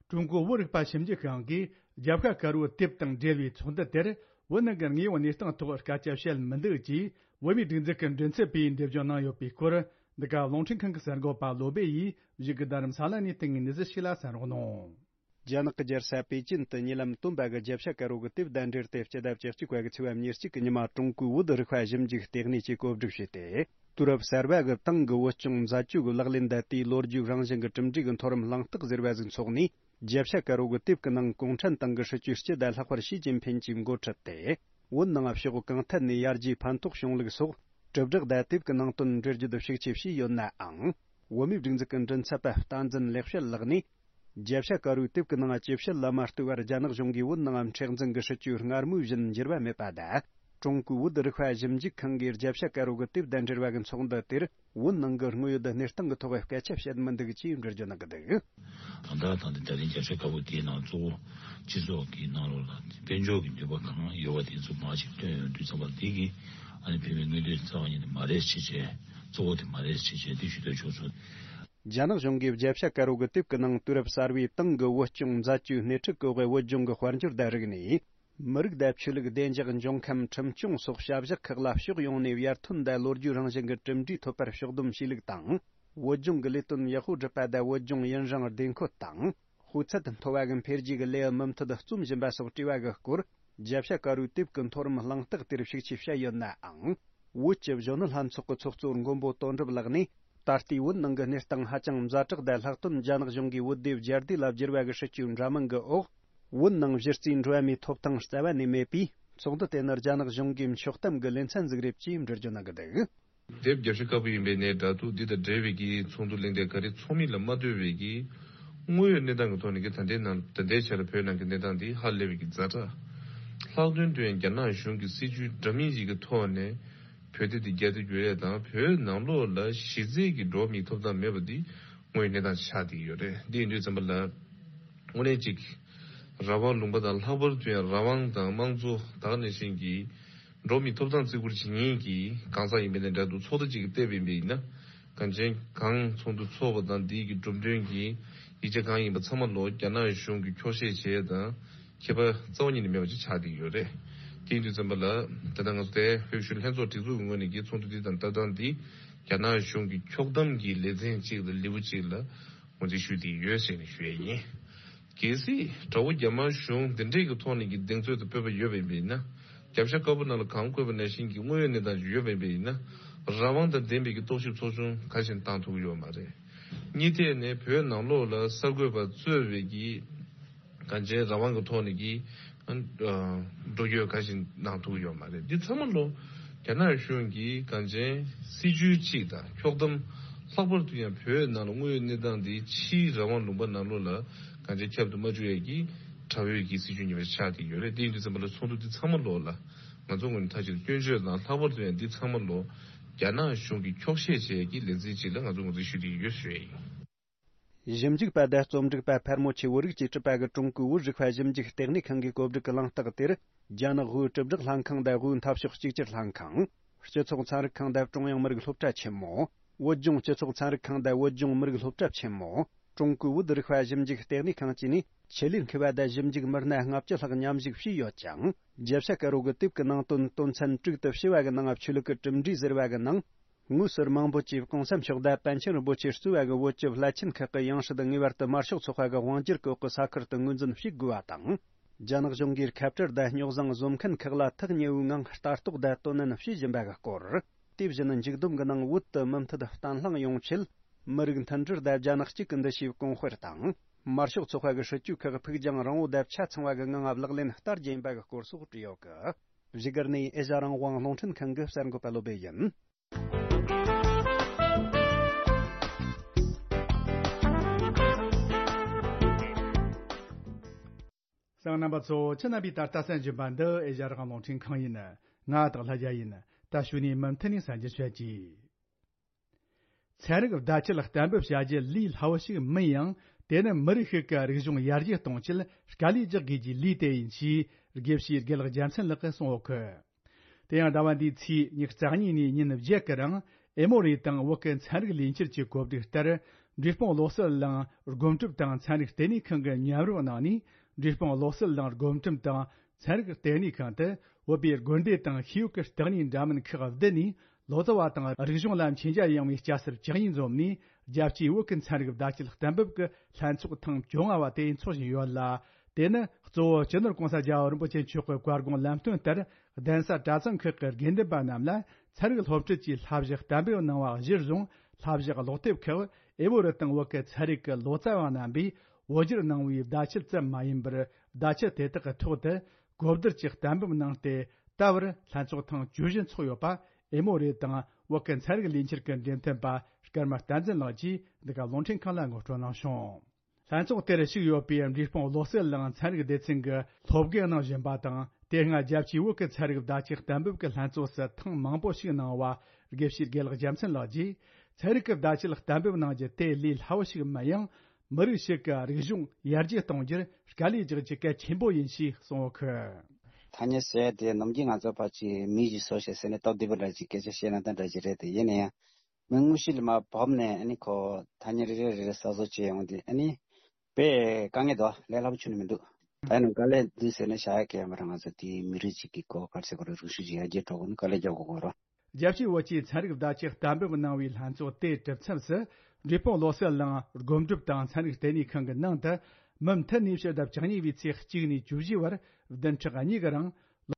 ཀྲུང་གོའི་བོད་རིག་པ་ཞིབ་འཇུག་ཁང་གིས་རྒྱབ་ཤ་དཀར་པོའི་དེབ་དང་འབྲེལ་བའི་ཚོགས་འདུ་དེར། བོད་ནང་གི་དངོས་ཡོད་གནས་སྟངས་ཐོག་སྐད་ཆ་བཤད་མི་འདུག་ཅེས་བོད་མིའི་སྒྲིག་འཛུགས་ཀྱི་མགྲིན་ཚབ་པས་འགྲེལ་བརྗོད་གནང་ཡོད་པའི་སྐོར། འདི་ག་རླུང་འཕྲིན་ཁང་གི་གསར་འགོད་པ་བློ་སྦེ་ཡིས་བཞུགས་སྒར་རྡ་རམ་ས་ལ་ནས་བཏང་བའི་གནས་ཚུལ་ཞིག་ལ་གསན་རོགས་གནང་། རྒྱ་ནག་གི་རྒྱལ་ས་པེ་ཅིན་དུ་ཉེ་ལམ་སྟོན་པ་གི་རྒྱབ་ཤ་དཀར་པོ་གི་དེབ་དང་འབྲེལ་ཏེ། སྤྱི་ཟླ་བཅུ་གཅིག་པ་གི་ཚེས་པ་ཉེར་གཅིག་གི་ཉི་མ། ཀྲུང་གོའི་བོད་རིག་པ་ཞིབ་འཇུག་ལྟེ་གནས་ཀྱིས་གོ་སྒྲིག་བྱས་ཏེ། དུས་རབས་གསར་པ་གི་ཏང་གི་བོད་སྐྱོང་མཛད་ཇུས་ཀྱི་ལག་ལེན་དང་། དེའི་ལོ་རྒྱུས་རང་བཞིན་གྱི་གྲུབ་འབྲས་ཀྱི་མཐོ་རིམ་གླེང་སྟེགས་ཟེར་བ་ཞིག་འཚོགས་ནས། རྒྱབ་ཤ་དཀར་པོ་གི་དེབ་ཀྱི་ནང་གུང་ཁྲན་ཏང་གི་སྲིད་བྱུས་སྤྱི་དང་ལྷག་པར་ཞི་ཅིན་ཕིན་གྱིས་འགོ་ཁྲིད་དེ། བོད་ནང་ཕྱོགས་གང་ཐད་ནས་ཡར་རྒྱས་ཕན་ཐོགས་བྱུང་ལུགས་སོགས་དྲིལ་བསྒྲགས་དང་དེབ་ཀྱི་ནང་དོན་འགྲེལ་བརྗོད་ཤུགས་ཆེ་བྱས་ཡོད་ནའང་། བོད་མིའི་སྒྲིག་འཛུགས་ཀྱི་མགྲིན་ཚབ་པ་བསྟན་འཛིན་ལེགས་བཤད་ལགས་ནས། རྒྱབ་ཤ་དཀར་པོའི་དེབ་ཀྱི་ནང་ཇི་བཤད་ལ་མ་ལྟོས་པར། རྒྱ་ནག་གཞུང་གིས་བོད་ནང་མཁྲེགས་འཛིན་གྱི་སྲིད་བྱུས་སྔར་མུས་བཞིན་འགྱུར་བ་མེད་པ་དང་། ཀྲུང་གོའི་བོད་རིག་པ་ཞིབ་འཇུག་ཁང་གིས་རྒྱབ་ཤ་དཀར་པོ་གི་དེབ་དང་འབྲེལ་བ་གི་ཚོགས་འདུ་དེར། བོད་ནང་གི་དངོས་ཡོད་གནས་སྟངས་ཀྱི་ཐོག་སྐད་ཆ་བཤད་མི་འདུག་ཅེས་འགྲེལ་བརྗོད་གནང་གི་འདུག། ད་ལྟ་དང་དེ་ད་རིང་རྒྱབ་ཤ་དཀར་པོ་དེའི་ནང་གཙོ་བོ་སྤྱི་ཚོགས་ཀྱི་ནང་ལོགས་ལ་དཔལ་འབྱོར་གྱི་ནུས་པ་གང་ཡོད་པ་དེ་ཚོ་མར་ཅིག་བཏོན་ཡོང་དུས་ཙམ་པ། འདི་གི་ཨ་ནི་བོད་མིའི་མངོན་འདོད་རྩ་བ་ཉིད་ནས་མ་རེད་ཅེས་བྱས། གཙོ་བོ་དེ་མ་རེད་ཅེས་བྱས། འདི་ཞུ་འདོད་བྱུང་སོང་། རྒྱ་ནག་གཞུང་གིས་རྒྱབ་ཤ་དཀར་པོ་གི་དེབ་ཀྱི་ནང་དུས་རབས་གསར་པའི་ཏང་གི་བོད་སྐྱོང་མཛད་ཇུས་སྣེ་ཁྲིད་སྐོར་གྱི་བོད་ལྗོངས་ཀྱི་དཔལ་འབྱོར་དང་རིག་གནས། མི་རིགས་དང་ཆོས་ལུགས། བདེ་འཇགས། འབྱུང་ཁམས། ཁྲིམས་སྐྱོང་སོགས་བྱ་གཞག་ཁག་ལ་ཕྱོགས་ཡོངས་ནས་ཡར་ཐོན་དང་ལོ་རྒྱུས་རང་བཞིན་གྱི་གྲུབ་འབྲས་ཐོབ་པར་ཕྱོགས་བསྡོམས་བྱས་ལུགས་དང་། བོད་ལྗོངས་ཀྱི་ལས་དོན་ཡག་པོ་སྒྲུབ་པ་དང་། བོད་ལྗོངས་ཡུན་རིང་བདེ་འཁོད་དང་། སྤུས་ཚད་མཐོ་བ་གི་འཕེལ་རྒྱས་ཀྱི་ལེའུ་མུ་མཐུད་རྩོམ་བཞིན་པ་སོགས་བྲིས་པ་གི་སྐོར། རྒྱབ་ཤ་དཀར་པོའི་དེབ་ཀྱི་མཐོ་རིམ་གླེང་སྟེགས་དེར་ཤུགས་ཆེ་བྱས་ཡོད་ནའང་། བོད་ཀྱི་གཞོན་ནུ་ལྷན་ཚོགས་ཀྱི་ཚོགས་གཙོ་མགོན་པོ་དོན་གྲུབ་ལགས་ནས། ད་ལྟའི་བོད་ནང་གི་གནས་སྟངས་ཧ་ཅང་ཛ་དྲག་དང་། ལྷག་དོན་རྒྱ་ནག་གཞུང་གིས་བོད་དེ་བསྒྱར་བསྡུས་ལ་བསྒྱུར་བ་གི་སྲིད་ཇུས་འདྲ་མིན་གྱི་འོག་བོད་ནང་གཞི་རྩའི་འགྲོ་བ་མིའི་ཐོབ་ཐང་རྩ་བ་ནས་མེད་པས། ཚོགས་འདུ་དེ་ནི་རྒྱ་ནག་གཞུང་གིས་འཁྱོག་གཏམ་གྱི་ལེ་ཚན་ཟིག་རེད་ཅེས་འགྲེལ་བརྗོད་གནང་གི་འདུག། དེབ་རྒྱབ་ཤ་དཀར་པོ་ཡིན་པའི་ནས་འདྲ་འདུག། འདི་དང་འབྲེལ་བའི་གི་ཚོགས་འདུ་གླེང་སྟེགས་ག་རེ་ཚོགས་མིན་ལ་མ་ལྟོས་པའི་གི་དངོས་ཡོད་གནས་སྟངས་ཀྱི་ཐོག་ནས་གི་ད་ལྟའི་ནང་ད་ལྟའི་ཆར་བོད་ནང་གི་གནས་སྟངས་འདི་ཧ་ལས་པའི་གི་ཛ་དྲག་ ལྷག་དོན་དུ་ཡང་རྒྱ་ནག་གཞུང་གི་སྲིད་བྱུས་འདྲ་མིན་ཞིག་གི་ཐོག་ནས་བོད་དེ་དེ་རྒྱ་དེ་བརྗོད་ཡས་དང་བོད་ནང་ལོགས་ལ་གཞི་རྩའི་གི་འགྲོ་བ་མིའི་ཐོབ་ཐང་མེད་པ་འདི་དངོས་ཡོད་གནས་སྟངས་ཆགས་བསྡད་ཡོད་རེད། འདི་ཡིན་དུས་ཙམ་པ་ལ་དངོས་གནས་ཅིག་རང་དབང་ལུང་པ་དང་ལྷག་པར་དུ་ཡང་རང་དབང་དང་དམངས་གཙོ་ད་ག་ནང་བཞིན་གྱི་འགྲོ་བ་མིའི་ཐོབ་ཐང་བརྩི་བཀུར་བྱེད་མཁན་གྱི་གང་ཟག་ཡིན་པ་ནས་འདྲ་འདུག་ཚོགས་སྡེ་ཅིག་གིས་བལྟས་པ་ཡིན་པ་ཡིན་ན་གངས་ཅན་གང་ཚོགས་འདུ་ཚོགས་པ་དང་འདིའི་གི་གྲུབ་དོན་གྱི་ཡིག་ཆ་གང་ཡིན་པ་ཚང་མ་ལོ་རྒྱ་ནག་གཞུང་གིས་འཁྱོག་བཤད་བྱས་དང་། ཁྱད་པར་རྩ་བ་ཉིད་ནས་མེད་པ་ཅིག་ཆགས་བསྡད་ཡོད་རེད། དེ་ཡིན་དུས་ཙམ་པ་ལ་ད་ལྟ་ང་ཚོ་དེ་བོད་གཞོན་ལྷན་ཚོགས་སྒྲིག་འཛུགས་ཀྱི་ངོས་ནས་ཀྱི་ཚོགས་འདུ་འདི་དང་ལྟ་སྟངས་འདི་རྒྱ་ནག་གཞུང་གི་འཁྱོག་བསྡོམས་ཀྱི་ལེ་ཚན་གཅིག་ལ་ལེའུ་གཅིག་ལ་ངོས་འཛིན་ཞུས་བསྡད་ཡོད་ཟེར་ནས་ཞུ་ཡས་ཡིན། གལ་སྲིད་དགྲ་བོ་རྒྱ་དམར་གཞུང་འདི་འདྲས་ཀྱི་ཐོག་ནས་ཀྱི་གདེང་ཚོད་དང་སྤོབས་པ་ཡོད་པ་ཡིན་པ་ཡིན་ན། རྒྱབ་ཤ་དཀར་པོ་ནང་ལ་གང་བཀོད་པ་ནང་བཞིན་གྱི་དངོས་ཡོད་གནས་སྟངས་ཤིག་ཡོད་པ་ཡིན་པ་ཡིན་ན། རང་དབང་དང་ལྡན་པའི་གི་རྟོག་ཞིབ་ཚོགས་ཆུང་ག་ཞིག་བཏང་ཐུབ་ཀྱི་ཡོད་མ་རེད། གཉིས་ཐད་ནས་བོད་ནང་ལོགས་ལ་གསར་འགོད་པ་གཙོས་པའི་གི་གང་ཅིའི་རང་དབང་གི་ཐོག་ནས་ཀྱི་འགྲོ་སྐྱོད་ག་ཞིག་གནང་ཐུབ་ཀྱི་ཡོད་མ་རེད། འདི་ཚང་མ་ལོ་རྒྱ་ནག་གཞུང་གིས་གང་ཅིའི་སྲིད་བྱུས་གཅིག་དང་འཁྱོག་བསྡོམས་ལྷག་པར་དུ་ཡང་བོད་ནང་ལ་དངོས་ཡོད་གནས་སྟངས་འདི་ཕྱིའི་རང་དབང་ལུང་པ་ནང་ལོགས་ལ་གང་ཅིའི་ཁྱབ་ཏུ་མ་བཅུག་ཡས་ཀྱི་དགྲ་བོའི་གི་སྲིད་བྱུས་ཉེས་པ་ཆགས་བསྡད་ཡོད་རེད། དེ་ཡིན་དུས་ཙམ་པ་ལ་ཚོགས་འདུ་འདི་ཚང་མ་ལོ་ལ་ང་ཚོ་ངོས་ནས་མཐའ་གཅིག་ཏུ་སྐྱོན་བརྗོད་དང་ལྷག་པར་དུ་ཡང་འདི་ཚང་མ་ལོ་རྒྱ་ནག་གཞུང་གིས་འཁྱོག་བཤད་བྱས་ཀྱི་ལེ་ཚན་གཅིག་ལ་ང་ཚོ་ངོས་འཛིན་ཞུ་བསྡད་ཡོད་ཞུ་ཡས་ཡིན། ཞིབ་འཇུག་པ་དང་རྩོམ་སྒྲིག་པ་ཕལ་མོ་ཆེ་བོད་རིགས་ཀྱིས་གྲུབ་པ་གི་ཀྲུང་གོའི་བོད་རིག་པ་ཞིབ་འཇུག་ལྟེ་གནས་ཁང་གི་གོ་སྒྲིག་གི་གླེང་སྟེགས་དེར། རྒྱ་ནག་དབུས་དྲིལ་བསྒྲགས་ལྷན་ཁང་དང་དབུས་འཐབ་ཕྱོགས་གཅིག་གྱུར་ལྷན་ཁང་། སྤྱི་ཚོགས་ཚན་རིག་ཁང་དང་ཀྲུང་དབྱང་མི་རིགས་སློབ་གྲྭ་ཆེན་མོ། བོད་ལྗོངས་སྤྱི་ཚོགས་ཚན་རིག་ཁང་དང་བོད་ལྗོངས་མི་རིགས་སློབ་གྲྭ་ཆེན་མོ། ཀྲུང་གོའི་བོད་རིག་པ་ཞིབ་འཇུག་ལྟེ་གནས་ཁང་བཅས་ནས་ཆེད་ལས་མཁས་པ་དང་ཞིབ་འཇུག་མི་སྣ་ལྔ་བཅུ་ལྷག་མཉམ་ཞུགས་བྱས་ཡོད་ཅིང་། རྒྱལ་ས་ཀ་རོ་གི་དེབ་ཀྱི་ནང་དོན་དོན་ཚན་དྲུག་ཏུ་ཕྱེ་བ་གི་ནང་ཆོས་ལུགས་ཀྱི་གྲུབ་འབྲས་ཟེར་བ་གི་ནང་། དངོས་སུ་རྨང་བོད་ཀྱི་གོང་ས་མཆོག་དང་པཎ་ཆེན་རིན་པོ་ཆེ་གཙོས་པ་གི་བོད་ཀྱི་བླ་ཆེན་ཁག་གི་ཡང་སྲིད་ངེས་པར་དུ་དམར་ཤོག་ཚོགས་པ་གི་དབང་སྒྱུར་གྱི་འོག་གི་ས་ཁུལ་དུ་ངོས་འཛིན་བྱེད་དགོས་པ་དང་། རྒྱ་ནག་གཞུང་གིས་ཁ་བྲལ་དང་རྙོག་བཟང་བཟོ་མཁན་ཁག་ལ་ཐག་ཉེ་བོའི་ངང་ལྟ་རྟོག་དང་དོ་ནན་བྱེད་བཞིན་པ་གི་སྐོར། དེ་བཞིན་མཇུག་བསྡོམས་ཀྱི་ནང་བོད་དུ་མུ་མཐུད་བརྟན་ལྷིང་ཡོང་ཆེད། མི་རིགས་མཐུན་སྒྲིལ་དང་རྒྱ་ནག་གཅིག་གི་འདུ་ཤེས་གོང་སྤེལ་དང་། དམར་ཤོག་ཚོགས་པ་གི་སྲིད་བྱུས་ཁག་ཕུགས་རྒྱང་རིང་བོ་དང་ཆ་ཚང་བ་གི་ངང་ལག་ལེན་བསྟར་རྒྱུ་ཡིན་པ་གི་སྐོར་སོགས་བྲིས་ཡོད་གི། བཞུགས་སྒར་ནས་ཨེ་ཤ་རང་དབང་རླུང་འཕྲིན་ཁང་གི་གསར་འགོད་པ་བློ་བྷེ་ཡིན། གསན་མཁན་རྣམ་པ་ཚོ། ཁྱེད་རྣམ་པས་ད་ལྟ་གསན་བཞིན་པ་འདི་ཨེ་ཤ་རང་དབང་རླུང་འཕྲིན་ཁང་ཡིན། ང་སྟག་ལྷ་རྒྱལ་ཡིན། ད་གཞུག་ནས་མུ་མཐུད་ནས་གསན་རྒྱུ་བྱེད་ཀྱི། ཚན་རིག་བརྡ་ཁྱད་གཏན་འབེབས་བྱ་རྒྱུ་ལས་སླ་བོ་ཞིག་མིན་ཡང་། དེ་ནི་མི་རིགས་ཤིག་གི་རིག་གཞུང་ཡར་རྒྱས་གཏོང་ཆེད་དཀའ་ལས་རྒྱག་དགོས་ཀྱི་ལས་དེ་ཡིན་ཞེས་དགེ་བཤེས་དགེ་ལེགས་རྒྱལ་མཚན་ལགས་ཀྱིས་གསུངས་ཡོད་གི། དེ་ཡང་ཟླ་བ་འདིའི་ཚེས་ཉི་ཤུ་རྩ་གཉིས་ནས་ཉིན་བརྒྱད་ཀྱི་རིང་ཨེ་མོ་རི་དང་བོད་ཀྱི་ཚན་རིག་ལས་འཁྱུར་གྱི་གོ་སྒྲིག་ལྟར། འབྲས་སྤུངས་བློ་གསལ་གླིང་སྒོམ་སྒྲུབ་དང་ཚན་རིག་ལྟེ་གནས་ཁང་གི་མཉམ་རུབ་གནང་ནས། འབྲས་སྤུངས་བློ་གསལ་གླིང་སྒོམ་སྒྲུབ་དང་ཚན་རིག་ལྟེ་གནས་ཁང་དུ་བོད་པའི་དགོན་སྡེ་དང་ཤེས་ཡོན་གྱི་བརྟག་གཉིས་འདྲ་མིན་ཁག་བསྡུས་ནས། ལོ་ཙཱ་བ་དང་རིག་གཞུང་ལ་མཁྱེན་རྒྱ་ཡངས་པའི་སྐྱ་སེར་བཅུ་གཉིས་འཛོམས་ནས། རྒྱལ་སྤྱིའི་བོད་ཀྱི་ཚན་རིག་བརྡ་ཁྱད་གཏན་འབེབས་ཀྱི་ལྷན་ཚོགས་ཐེངས་བཅོ་ལྔ་བ་དེ་འཚོགས་བཞིན་ཡོད་ལ། དེ་ནི་གཙོ་བོ་སྤྱི་ནོར་༸གོང་ས་༸རྒྱལ་བ་རིན་པོ་ཆེ་མཆོག་གི་བཀའ་དགོངས་ལམ་སྟོན་ལྟར། གདན་ས་གྲྭ་ཚང་ཁག་གི་དགེ་འདུན་པ་རྣམས་ལ་ཚན་རིག་སློབ་ཁྲིད་ཀྱི་བསླབ་བྱ་གཏན་འབེབས་གནང་བ་གཞིར་བཟུང་། བསླབ་བྱ་ཀློག་དེབ་ཁག་ཨེ་བོ་རི་དང་བོད་ཀྱི་ཚན་རིག་གི་ལོ་ཙཱ་བ་རྣམ་པས་བོད་བསྒྱུར་གནང་བའི་བརྡ་ཁྱད་ཙམ་མ་ཡིན་པར། བརྡ་ཁྱད་དེ་དག་གི་ཐོག་ཏུ་གོ་བསྡུར་གྱི་གཏན་འབེབས་གནང་སྟེ། ད་བར་ལྷན་ཚོགས་ཐེངས་བཅུ་བཞི་འཚོགས་ཡོད་པ། ཨེ་མོ་རི་དང་བོད་ཀྱི་ཚན་རིག་ལས་འཁྱུར་གྱི་འབྲེལ་མཐུད་པ་སྐར་མ་བསྟན་འཛིན་ལགས་ཀྱིས་འདི་ག་རླུང་འཕྲིན་ཁང་ལ་ངོ་སྤྲོད་གནང་བྱུང་། ལྷན་ཚོགས་དེར་ཞུགས་ཡོད་པའི་འབྲས་སྤུངས་བློ་གསལ་གླིང་ཚན་རིག་སྡེ་ཚན་གྱི་སློབ་དགེ་གནང་བཞིན་པ་དང་། དེ་སྔ་རྒྱལ་སྤྱིའི་བོད་ཀྱི་ཚན་རིག་བརྡ་ཁྱད་གཏན་འབེབས་ཀྱི་ལྷན་ཚོགས་སུ་ཐེངས་མང་པོ་ཞིག་གནང་བ་དགེ་བཤེས་དགེ་ལེགས་རྒྱལ་མཚན་ལགས་ཀྱིས། ཚན་རིག་གི་བརྡ་ཁྱད་གཏན་འབེབས་གནང་རྒྱུ་དེ་ལས་སླ་བོ་ཞིག་མིན་ཡང་། མི་རིགས་ཤིག་གི་རིག་གཞུང་ཡར་རྒྱས་གཏོང་རྒྱུར་དཀའ་ལས་རྒྱག་རྒྱུ་གལ་ཆེན་པོ་ཡིན་ཞེས་གསུངས་ཡོད་གི། ཐ་སྙད་ཟེར་ཡ་དེ་ནམ་རྒྱུན་ང་ཚོ་ཕར་ཅིག་མི་ཞིག་བཟོ་བྱས་ཟེར་ནས་སྟབས་བདེ་པོ་འདྲ་ཅིག་སྐད་ཆ་བཤད་ན་ད་འདྲ་ཅིག་རེད་དེ། ཡིན་ན་ཡང་། མི་དངོས་གཞི་ལ་མར་བབས་ནས་ཨ་ནི་ཁོ་ཐ་སྙད་རེ་རེ་རེ་རེ་གསར་བཟོ་བྱས་ཡོང་དུས། ཨ་ནི་དཔེ་དཀའ་ངལ་འདུག་ལས་སླ་པོ་ཁྱོན་ནས་མི་འདུག་ད་ནི་དཀའ་ལས་འདུག་ཟེར་ནས་བྱ་ཡ་གལ་ཡོད་མ་རེད། ང་ཚོ་དེའི་མི་རིགས་གཅིག་གི་གོ་ག་རེ་ཟེར་དགོས་རེད། རིག་གཞུང་ཅིག་ཡར་རྒྱས་འགྲོ་དགོས་ན་དཀའ་ལས་རྒྱག་དགོས་ཀྱི་རེད། རྒྱལ་སྤྱིའི་བོད་ཀྱི་ཚན་རིག་བརྡ་ཁྱབ་གཏན་འབེབས་གནང་བའི་ལྷན་ཚོགས་དེའི་གྲུབ་མཚམས་སུ། འབྲས་སྤུངས་བློ་གསལ་གླིང་སྒོམ་སྒྲུབ་དང་ཚན་རིག་ལྟེ་གནས་ཁང་གི་ནང་དུ། མུ་མཐུད་ནས་ཕྱི་ཟླ་བཅུ་གཉིས་པའི་ཚེས་གཅིག་ནས་བཅུ་བཞི་བར་བདུན་ཕྲག་གཉིས་ཀྱི་རིང་།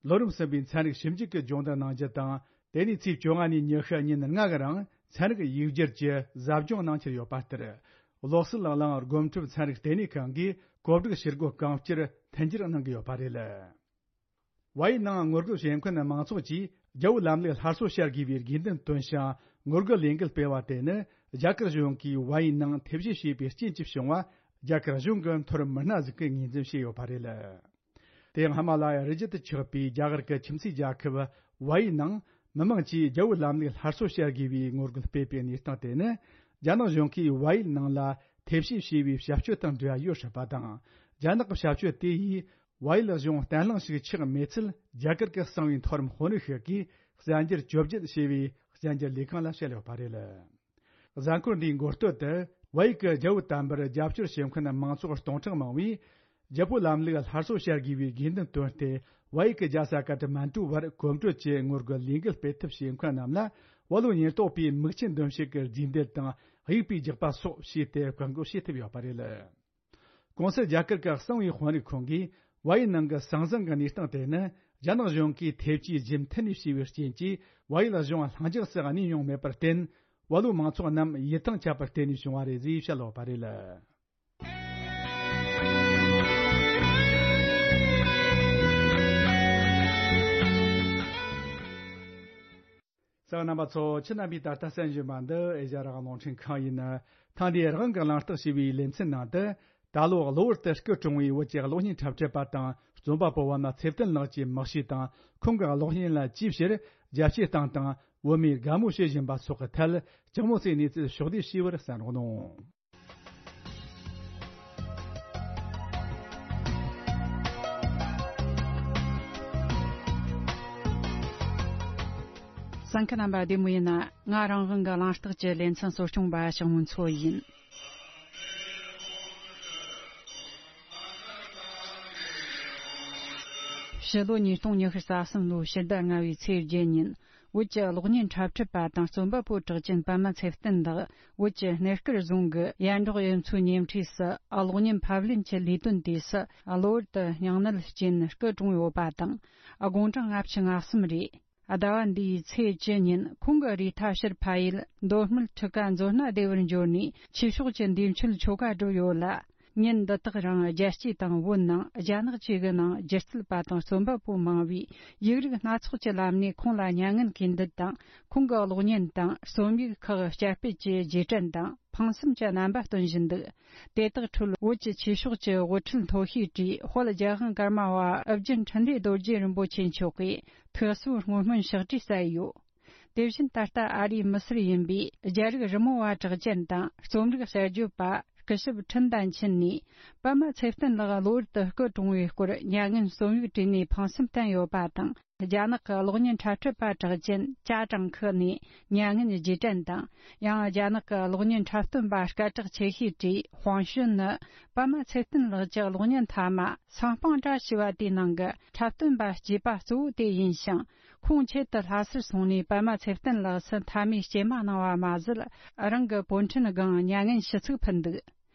ལོ་རིམ་གསུམ་པའི་ཚན་རིག་ཞིབ་འཇུག་གི་སྦྱོང་བརྡར་གནང་རྒྱུ་དང་། དེ་ནས་ཚེས་བཅོ་ལྔ་ནས་ཉི་ཤུ་ཉིན་ལྔ་གི་རིང་ཚན་རིག་ཡིག་སྒྱུར་གྱི་ཟབ་སྦྱོང་གནང་འཆར་ཡོད་པ་ལྟར། བློ་གསལ་གླིང་སྒོམ་སྒྲུབ་ཚན་རིག་ལྟེ་གནས་ཁང་གིས་གོ་སྒྲིག་བྱེད་སྒོ་གང་བསྐྱུར་མཐུན་འགྱུར་གནང་གི་ཡོད་པ་རེད། བལ་ཡུལ་ནང་ངོ་རྒོལ་བྱེད་མཁན་མང་ཚོགས་ཀྱིས་རྒྱལ་པོའི་ལམ་ལུགས་སླར་གསོ་བྱ་དགོས་པའི་དགོས་འདུན་བཏོན་ཞིང་། ངོ་རྒོལ་ལས་འགུལ་སྤེལ་བ་དེ་ནི་རྒྱ་གར་གཞུང་གིས་བལ་ཡུལ་ནང་ཐེ་བྱུས་བྱས་པའི་རྐྱེན་གྱིས་བྱུང་བ། རྒྱ་གར་གཞུང་གི་མཐོ་རིམ་མི་སྣ་ཟིག་གིས་ངོས་འཛིན་བྱས་ཡོད་པ་རེད། དེ་སྔ་མ་ལ་རི་རྒྱུད་དུ་ཆགས་པའི་རྒྱ་གར་གྱི་ཁྱིམ་མཚེས་རྒྱལ་ཁབ་ཝའི་ནང་མི་མང་གྱིས་རྒྱལ་པོའི་ལམ་ལུགས་སླར་གསོ་བྱ་དགོས་པའི་ངོ་རྒོལ་སྤེལ་པའི་གནས་སྟངས་དེ་ནི། རྒྱ་ནག་གཞུང་གིས་ཝའི་ནང་ལ་ཐེ་བྱུས་བྱས་པའི་བྱ་སྤྱོད་དང་འབྲེལ་བ་ཡོད་སྲིད་པ་དང་། རྒྱ་ནག་གི་བྱ་སྤྱོད་དེ་ཡིས་ཝའི་གཞུང་བརྟན་ལྷིང་ཞིག་ཆགས་མེད་ཚུལ་རྒྱ་གར་གྱི་གསང་བའི་མཐོ་རིམ་དཔོན་རིགས་ཤིག་གིས་གསལ་འགྱུར་བཅོ་བརྒྱད་ཞེས་པའི་གསལ་འགྱུར་ལས་ཁང་ལ་བཤད་ཡོད་པ་རེད། གཟའ་འཁོར་འདིའི་འགོ་སྟོད་དུ་ཝའི་གི་རྒྱལ་པོ་དམ་པར་རྒྱབ་སྐྱོར་བྱེད་མཁན་མང་ཚོགས་སྟོང་ཕྲག་མང་བས། རྒྱལ་པོའི་ལམ་ལུགས་སླར་གསོ་བྱ་དགོས་པའི་དགོས་འདུན་བཏོན་ཏེ། ཝའི་གི་རྒྱལ་ས་ཀ་ཏ་མན་ཀྲུ་བར་གོམ་བགྲོད་ཀྱི་ངོ་རྒོལ་ལས་འགུལ་སྤེལ་ཐབས་བྱེད་མཁན་རྣམས་ལ་བ་ལོ་ཉེན་རྟོག་པས་མིག་ཆུ་འདོན་བྱེད་ཀྱི་རྫས་མདེལ་དང་དབྱུག་པས་རྒྱག་པ་སོགས་བྱས་ཏེ་བཀག་འགོག་བྱེད་ཐུབ་ཡོད་པ་རེད། གོང་གསལ་རྒྱ་གར་གྱི་གསང་བའི་དཔོན་རིགས་ཁོང་གིས་ཝའི་ནང་གི་ཟང་ཟིང་གི་གནས་སྟངས་དེ་ནི་རྒྱ་ནག་གཞུང་གིས་ཐེ་བྱུས་རྒྱུན་མཐུད་ནས་བྱས་པའི་རྐྱེན་གྱིས་ཝའི་གཞུང་ལྷིང་འཇགས་སུ་གནས་མྱོང་མེད་པར་བརྟེན། བ་ལོའི་མང་ཚོགས་རྣམས་ཡིད་ཐང་ཆད་པར་བརྟེན་ནས་བྱུང་བ་རེད་ཅེས་བཤད་ཡོད་པ་རེད། གསན་མཁན་རྣམ་པ་ཚོ། ཁྱེད་རྣམ་པས་ད་ལྟ་གསན་བཞིན་པ་འདི་ཨེ་ཤ་ཡ་རང་དབང་རླུང་འཕྲིན་ཁང་ཡིན། ཐེངས་འདིའི་རང་དབང་གི་གླེང་སྟེགས་ཞེས་པའི་ལེ་ཚན་ནང་དུ། ད་ལོ་གློ་བུར་དུ་སྐུ་གྲོངས་པའི་བོད་ཀྱི་གློག་བརྙན་འཁྲབ་ཁྲིད་པ་དང་རྩོམ་པ་པོ་པདྨ་ཚེ་བརྟན་ལགས་ཀྱི་མི་གཤིས་དང་། ཁོང་གི་གློག་བརྙན་ལ་ཅིའི་ཕྱིར་རྒྱ་སྐྱེད་སྟངས་དང་། བོད་མིས་དགའ་མོས་བྱེད་བཞིན་པ་སོགས་ཀྱི་ཐད། ལྕགས་མོ་སའི་གནས་ཚུལ་ཕྱོགས་བསྡུས་ཞུས་པར་གསན་རོགས་གནང་། གསན་མཁན་རྣམ་པ་བདེ་མོ་ཡིན་ན། ང་རང་དབང་གི་གླེང་སྟེགས་ཀྱི་ལེ་ཚན་གཙོ་སྐྱོང་པ་ཞང་མུན་མཚོ་ཡིན། ཕྱི་ལོ་ཉིས་སྟོང་ཉི་ཤུ་རྩ་གསུམ་ལོའི་ཕྱི་ཟླ་ལྔ་བའི་ཚེས་བརྒྱད་ཉིན། བོད་ཀྱི་གློག་བརྙན་འཁྲབ་ཁྲིད་པ་དང་རྩོམ་པ་པོ་གྲགས་ཅན་པདྨ་ཚེ་བརྟན་ལགས་བོད་ཀྱི་སྣེ་དཀར་རྫོང་གི་ཡན་འབྲོག་གཡུ་མཚོའི་ཉེ་འཁྲིས་སུ་གློག་བརྙན་ཕབ་ལེན་གྱི་ལས་དོན་དུས་སུ་གློ་བུར་དུ་སྙིང་ནད་རྐྱེན་སྐུ་གྲོངས་ཡོད་པ་དང་། དགུང་གྲངས་ལྔ་བཅུ་ང་གསུམ་རེད། ཟླ་བ་འདིའི་ཚེས་བཅུ་ཉིན་ཁོང་གི་རུས་ཐག་ཕྱིར་འཕར་ཡུལ་མདོ་སྨད་ཁྲི་ཀ་མཛོ་སྣ་སྡེ་བར་འབྱོར་ནས་ཆོས་ཕྱོགས་ཀྱི་འདས་མཆོད་ཆོ་ག་བསྒྲུབས་ཡོད་ལ། ཉིན་འདི་དག་རིང་རྒྱལ་སྤྱི་དང་བོད་ནང་རྒྱ་ནག་བཅས་ཀྱི་ནང་སྒྱུ་རྩལ་པ་དང་རྩོམ་པ་པོ་མང་བས་ཡིག་རིགས་སྣ་ཚོགས་ཀྱི་ལམ་ནས་ཁོང་ལ་མྱ་ངན་གུས་འདུད་དང་ཁོང་གི་གློག་བརྙན་དང་རྩོམ་ཡིག་ཁག་བསྐྱར་སྤེལ་གྱི་རྗེས་དྲན་དང་ཕངས་སེམས་ཀྱི་རྣམ་པ་སྟོན་བཞིན་འདུག་དེ་དག་ཁྲོད་བོད་ཀྱི་ཆོས་ཕྱོགས་ཀྱི་དབུ་ཁྲིད་མཐོ་ཤོས་གྲས་དཔལ་རྒྱལ་དབང་ཀརྨ་པ་ཨོ་རྒྱན་འཕྲིན་ལས་རྡོ་རྗེ་རིན་པོ་ཆེ་མཆོག་གིས་ཐུགས་གསོའི་བསྔོ་སྨོན་ཕྱག་བྲིས་སྩལ་ཡོད། དེ་བཞིན་ད་ལྟ་ཨ་རིའི་མི་སེར་ཡིན་པའི་རྒྱ་རིགས་རི་མོ་བ་གྲགས་ཅན་དང་རྩོམ་རིག་གསར་བརྗོད་པ་སྐུ་ཞབས་ཁྲིན་ཏན་ཆིན་ནས་པདྨ་ཚེ་བརྟན་ལགས་གློ་བུར་དུ་སྐུ་གྲོངས་པའི་སྐོར་མྱ་ངན་རྩོམ་ཡིག་བྲིས་ནས་ཕངས་སེམས་བསྟན་ཡོད་པ་དང་། རྒྱ་ནག་གི་གློག་བརྙན་འཁྲབ་ཁྲིད་པ་གྲགས་ཅན་ཅ་ཀྲང་ཁི་ནས་མྱ་ངན་རྗེས་དྲན་དང་། ཡང་རྒྱ་ནག་གི་གློག་བརྙན་འཁྲབ་སྟོན་པ་སྐད་གྲགས་ཆེ་ཤོས་གྲས་ཧུང་ཞུན་ནི་པདྨ་ཚེ་བརྟན་ལགས་ཀྱི་གློག་བརྙན་མཐའ་མ་ཟང་ཕང་བཀྲ་ཤིས་པ་དེའི་ནང་གི་འཁྲབ་སྟོན་པ་གཅེས་པ་གཙོ་བོ་དེ་ཡིན་ཞིང་། ཁོང་ཆེད་དུ་ལྷ་སར་སོང་ནས་པདྨ་ཚེ་བརྟན་ལགས་སུ་མཐའ་མའི་སྐྱེལ་མ་གནང་བ་མ་ཟད། རང་གི་པོན་ཁྲན་སྒང་མྱ་ངན་ཞུ་ཚིག་ཕུལ་འདུག་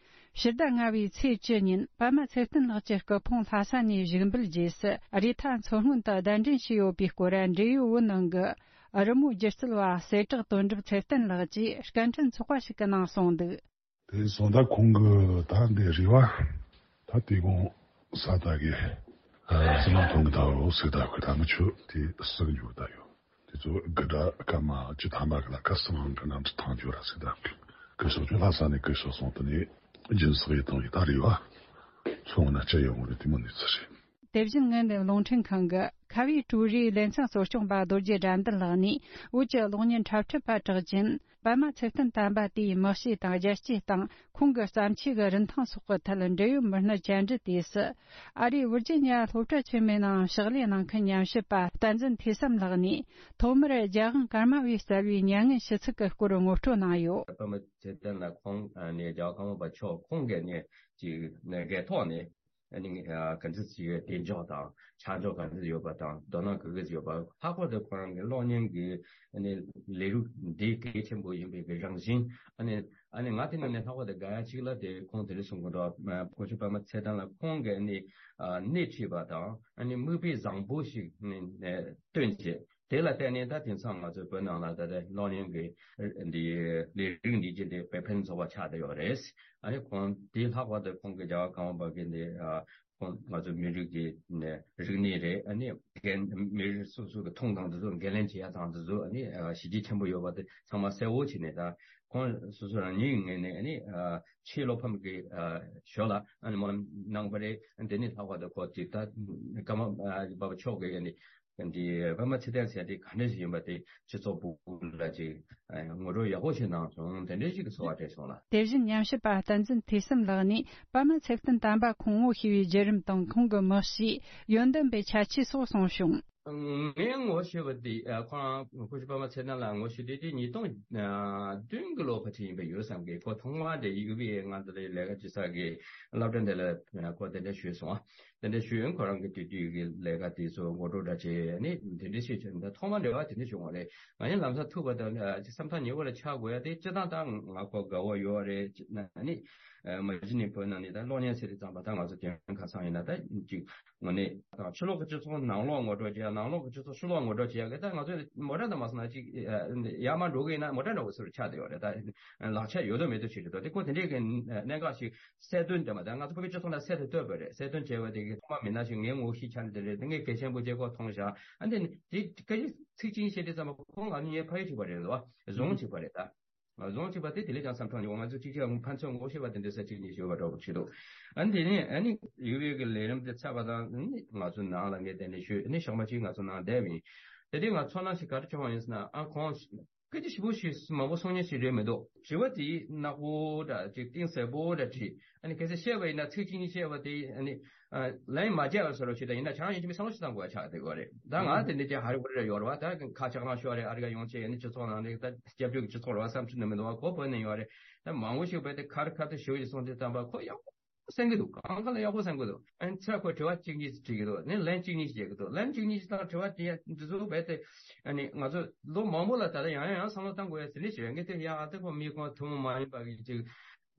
ཕྱི་ཟླ་ལྔ་བའི་ཚེས་བཅུ་ཉིན་པདྨ་ཚེ་བརྟན་ལགས་ཀྱི་སྐུ་ཕུང་ལྷ་ས་ནས་བཞུགས་འབུལ་རྗེས་སུ་རུས་ཐག་མཚོ་སྔོན་དུ་གདན་འདྲེན་བྱས་ཡོད་པའི་སྐོར་འབྲེལ་ཡོད་བོད་ནང་གི་རི་མོ་སྒྱུ་རྩལ་བ་གསལ་གྲགས་དོན་གྲུབ་ཚེ་བརྟན་ལགས་ཀྱིས་སྐད་འཕྲིན་ཚོགས་པ་ཞིག་གི་ནང་གསུངས་འདུག་དེ་སོང་ད་ཁོང་གི་ད་འདི་རེ་བ་ད་དེ་དགོང་ས་ད་གི་སི་མ་ཐོང་གི་ད་རོ་སི་ད་གི་ད་མི་ཆོ་དེ་སི་གི་འཇུག་ད་ཡོད། དེ་ཚོ་དགུ་སྒྲ་སྐར་མ་བཅུ་ཐམ་པ་གི་ལ་ཁ་སང་གི་ནང་དུ་ཐང་འཇུག་ར་སི་ད་གི་སོགས་ཆོ་ལྷ་ས་ནས་གི་སོགས་སོང་དུ་ནས་སྦྱིན་སོགས་ཡི་དང་ཡི་ད་རེ་བ་ཚོང་ན་སྤྱི་ཡོང་རེ་དེ་མོ་ནས་ཚུ་རེད། དེ་བཞིན་ངན་ལས་རླུང་འཕྲིན་ཁང་གི་ཁ་བའི་ཀྲུའུ་རེའི་ལེ་ཚན་གཙོ་སྐྱོང་པ་རྡོ་རྗེ་དགྲ་འདུལ་ལགས་ནས་བོད་ཀྱི་གློག་བརྙན་འཁྲབ་ཁྲིད་པ་གྲགས་ཅན་པདྨ་ཚེ་བརྟན་དམ་པ་དེའི་མི་གཤིས་དང་རྒྱལ་གཅེས་དང་ཁོང་གི་བརྩམས་ཆོས་ཀྱི་རིན་ཐང་སོགས་ཀྱི་ཐད་འབྲེལ་ཡོད་མི་སྣར་བཅར་འདྲི་དུས་སུ། ཨ་རིའི་ཝིར་ཇི་ཉི་ཡ་སློབ་གྲྭ་ཆེན་མོའི་ནང་ཕྱག་ལས་གནང་མཁན་ཉམས་ཞིབ་པ་བསྟན་འཛིན་ཐོས་བསམ་ལགས་ནས་ཐོག་མར་རྒྱལ་དབང་ཀརྨ་པས་སྩལ་བའི་མྱ་ངན་ཞུ་ཚིག་གི་སྐོར་ངོ་སྤྲོད་གནང་ཡོད། པདྨ་ཚེ་བརྟན་ལགས་ཁོང་ནས་རྒྱལ་བ་ཀརྨ་པ་མཆོག་ཁོང་གིས་ནས་ཅིག་ནས་སྒེར་ཐོག་ནས། ཨ་ནི་ཨ་ག་འདྲ་ཞིག་གདེང་འཇོག་དང་ཆ་འཇོག་ག་འདྲ་ཡོད་པ་དང་དོ་སྣང་ག་འདྲ་ཡོད་པ། ལྷག་པར་དུ་ཁོ་རང་གི་གློག་བརྙན་གྱི་ཨ་ནི་ལས་རིགས་འདི་གལ་ཆེན་པོ་ཡིན་པའི་གི་རང་བཞིན། ཨ་ནི་ཨ་ནི་ང་དེ་ནང་ནས་ལྷག་པར་དུ་དགའ་ཡ་གཅིག་ལ་དེ་ཁོང་དེ་རིང་གསུང་གི་འདུག་སྐུ་ཞབས་པདྨ་ཚེ་བརྟན་ལགས་ཁོང་གི་ཨ་ནི་ཨ་སྣེ་ཁྲིད་པ་དང་ཨ་ནི་མིག་དཔེ་བཟང་པོ་ཞིག་ནི་ཨ་སྟོན་བྱས། དེ་ལ་བརྟེན་ནས་ད་དེང་སང་ང་ཚོའི་བོད་ནང་ལ་ད་ལྟ་གློག་བརྙན་གྱི་འདི་ལས་རིགས་འདི་ཅི་འདི་དཔེ་ཕན་ཚོགས་པ་ཆགས་བསྡད་ཡོད་རེད། ཨ་ནི་ཁོང་དེ་ལྷག་པར་དུ་ཁོང་གི་རྒྱལ་བ་ཀརྨ་པ་གི་འདི་ཨ་ ཁོང་ང་ཚོ་མི་རིགས་ཀྱི་ནས་རིག་གནས་རེད། ཨ་ནི་རྒན་མི་རིགས་སོ་སོ་གི་མཐོང་སྟངས་དེ་ཚོ་འགན་ལེན་བྱེད་ཡ་དང་དེ་ཚོ་ཨ་ནི་ཨ་གཞི་རྒྱ་ཆེན་པོ་ཡོད་པ་དེ་ཚང་མ་གསལ་བོ་བྱས་ནས། ད་ཁོང་སོ་སོ་རང་ཉིད་ངོས་ནས་ཨ་ནི་ཨ་ཆེས་བློ་ཕམ་གྱི་ཨ་ཞོར་ལ་ཨ་ནི་སྨོན་ལམ་གནང་བ་རེད། དེ་ནི་ལྷག་པར་དུ་ཁོ་ཅིག་ད་ཀརྨ་ཨ་པ་མཆོག་གིས་ཨ་ནི་འདི་པདྨ་ཚེ་བརྟན་ཟེར་དེ་ག་འདྲ་ཞིག་ཡིན་པ་དེ་སྤྱི་ཚོགས་ཕྲུག་ལ་ཅིག་ངོ་སྤྲོད་ཡག་པོ་ཞིག་གནང་སོང་། དེ་འདྲ་ཞིག་གི་ཚོར་བ་སྤྲད་སོང་ལ། དེ་བཞིན་ཉམས་ཞིབ་པ་བསྟན་འཛིན་ཐོས་བསམ་ལགས་ནས་པདྨ་ཚེ་བརྟན་དམ་པ་ཁོང་བོ་ཤེས་པའི་བརྒྱུད་རིམ་དང་ཁོང་གི་དམག་གཤིས། ཡོན་ཏན་པའི་ཁྱད་ཆོས་སོགས་གསུངས་བྱུང་། ངས་ངོ་ཤེས་པ་དེ་ཨ་ཁོ་རང་སྐུ་ཞབས་པདྨ་ཚེ་བརྟན་ལགས་ངོ་ཤེས་དུས་དེ་ཉིས་སྟོང་བདུན་གྱི་ལོ་ཕལ་ཆེར་ཡིན་པ་ཡོད་བསམ་གི། ཁོ་ཐོག་མར་དེ་ཡུ་བི་ཨེ་ང་ཚོ་ལ་ལས་ཀ་བྱེད་ས་གི་སློབ་གྲྭ་དེ་ལ་ཁོ་དེ་འདྲ་ཞུས་སོང་། དེ་འདྲ་ཞུས་ཁོ་རང་གི་དུས་དུས་ཀྱི་ལས་ཀ་དེ་ཚོ་ངོ་སྤྲོད་འདྲ་བྱས་ནས་དེ་འདྲ་ཞིག་བྱས། ད་ཐོག་མར་འབྲེལ་བ་དེ་འདྲ་བྱུང་བ་རེད། ང་ཡང་ལམ་སང་ཐུག་པ་དང་ཨ་ཅིག་བསམ་ཐག་ཉེ་བོ་ལ་ཆགས་དགོས་ཡ་དེ་སྤྱིར་བཏང་ད་ང་ཁོ་དགའ་བོ་ཡོད་རེད། ཨ་ནི་མ་གཞི་ནས་བོད་ནང་ནས་ད་གློག་བརྙན་ཟེར་དུས་ཙམ་པ་ད་ང་ཚོ་དེ་རིང་ཁ་སང་ཡིན་ན་ད་ཅིག་དངོས་གནས་ཕྱི་ལོགས་ཀྱི་སྤྱི་ཚོགས་ནང་ལོགས་ངོ་སྤྲོད་བྱེད་ཡ། ནང་ལོགས་ཀྱི་སྤྱི་ཚོགས་ཕྱི་ལོགས་ངོ་སྤྲོད་བྱེད་ཡ་གི་ད་ང་ཚོ་མོ་ཊ་དང་མ་སོང་ན་ཅིག་ཡར་མར་འགྲོ་གི་ཡིན་ན་མོ་ཊ་འདྲ་བོ་ཟེར་བ་ཆགས་བསྡད་ཡོད་རེད། ད་ལག་ཆ་ཡོད་དོ་མེད་དོ་ཞིག་རེད་དོ། དེ་ཁོ་དེ་འདྲའི་གི་གནད་འགག་ཞིག་གསལ་སྟོན་དེ་མ་ད་ང་ཚོ་བོད་པའི་སྤྱི་ཚོགས་ནང་གསལ་དུ་བཏོད་པ་རེད། གསལ་སྟོན་བྱས་པ་དེ་གི་ཐོག་མ་མི་སྣ་ཞིག་ངའི་ངོ་ཤེས་ཆ་ནས་དེ་རེད། དེ་ངས་གལ་ཆེན་པོ་བྱས་ཁོ་མཐོང་བཞག་ཨ་འདི་ནི་དེ་སྐད་ཆ་ཚིག་གཅིག་བཤད་དུས་ཙམ་པ་ཁོང་ང་གཉིས་ཕ་ཡུལ་གཅིག་པ་རེད་འདུག་བ། རྫོང་གཅིག་པ་རེད་ད། རྫོང་གཅིག་པ་དེ་དེ་ལས་ཀྱང་བསམ་ཐང་ཉོ་ང་ཚོ་གཅིག་གཅིག་ཕན་ཚུན་ངོ་ཤེས་པ་དེ་འདྲ་ས་གཅིག་གཉིས་ཤོད་པ་འདྲ་པོ་བྱེད་འདུག་ཨ་འདི་ནི་ཨ་ནི་ཡུ་བེ་གི་ལས་རིམ་དེ་ཚར་བ་དང་ནི་ང་ཚོ་ནང་ལ་ངས་དེ་ནས་ཞུས་ནི་ཞག་མ་གཅིག་ང་ཚོ་ནང་བསྡད་པ་ཡིན། དེ་དུས་ང་ཚོ་ནང་ཞིག་ག་རེ་བྱུང་བ་ཡིན་ཟེར་ན་ཨ་ཁོང་སྐད་ཆ་ཞིབ་པོ་ཞིག་མང་པོ་གསུང་མཁན་ཞིག་རེད་མི་འདུག་དྲི་བ་དེ་ནག་པོ་འདྲ་ཅིག་གཏིང་ཟབ་པོ་འདྲ་དྲིས། ཨ་ནི་གལ་སྲིད་བཤད་པ་ཡིན་ན་ཚིག་གཅིག་གཉིས་བཤད་པ་དེ་ཨ་ནི་ལན་མ་རྒྱག་པ་བཟོ་འདྲ་ཞིག་དང་ཡིན་ན་ཁྱེད་རང་ཡིན་གཅིག་མིན་བསམ་བློ་ཞིག་བཏང་དགོས་ཡ་ཆགས་བསྡད་ཡོད་རེད། ད་ང་དེ་འདྲ་ཅིག་ཧ་རི་ཧུ་རི་ར་ཡོད་རེད་བ། ད་ཁ་ཆག་རང་ཤོར་རེད། ཨ་རི་ཀ་ཡོང་ཆེད་ཨ་ནི་སྤྱི་ཚོགས་ནང་ནས་ད་སྐྱབས་བཅོལ་གྱི་སྤྱི་ཚོགས་རེད་བ། བསམ་ཚུལ་ནི་མི་འདུག་བ། ཁོ་བོད་ནས་ཡོད་རེད། ད་མང་པོ་ཞིག་བས་དེ་ཁ་རི་ཁ་ཐུག་ཞུ་ཡི་སོང་དེ་ཙམ་པ་ཁོ་ཡག་པོ་གསན་གི་འདུག་གང་ག་ལ་ཡག་པོ་གསན་གི་འདུག་ཨ་ནི་ཚེ་ཁོས་དྲི་བ་གཅིག་གཉིས་ཤིག་དྲིས་གི་འདུག་ནི་ལན་གཅིག་གཉིས་ཤིག་བརྒྱབ་གི་འདུག་ལན་གཅིག་གཉིས་ཤིག་དང་དྲི་བ་དེ་འདི་ཚོ་རྦད་དེ་ཨ་ནི་ང་ཚོ་ལོ་མང་པོ་ལ་ད་ལྟ་ཡང་ཡང་ཡང་བསམ་བློ་བཏང་དགོས་ཡ་ཟེར་ནི་ཞིག་རེད། ངས་དེ་ཡང་ཨ་ཏི་ཁོ་མི་ཁོ་ཐུན་མོང་མ་ཡིན་པ་གི་ཅིག་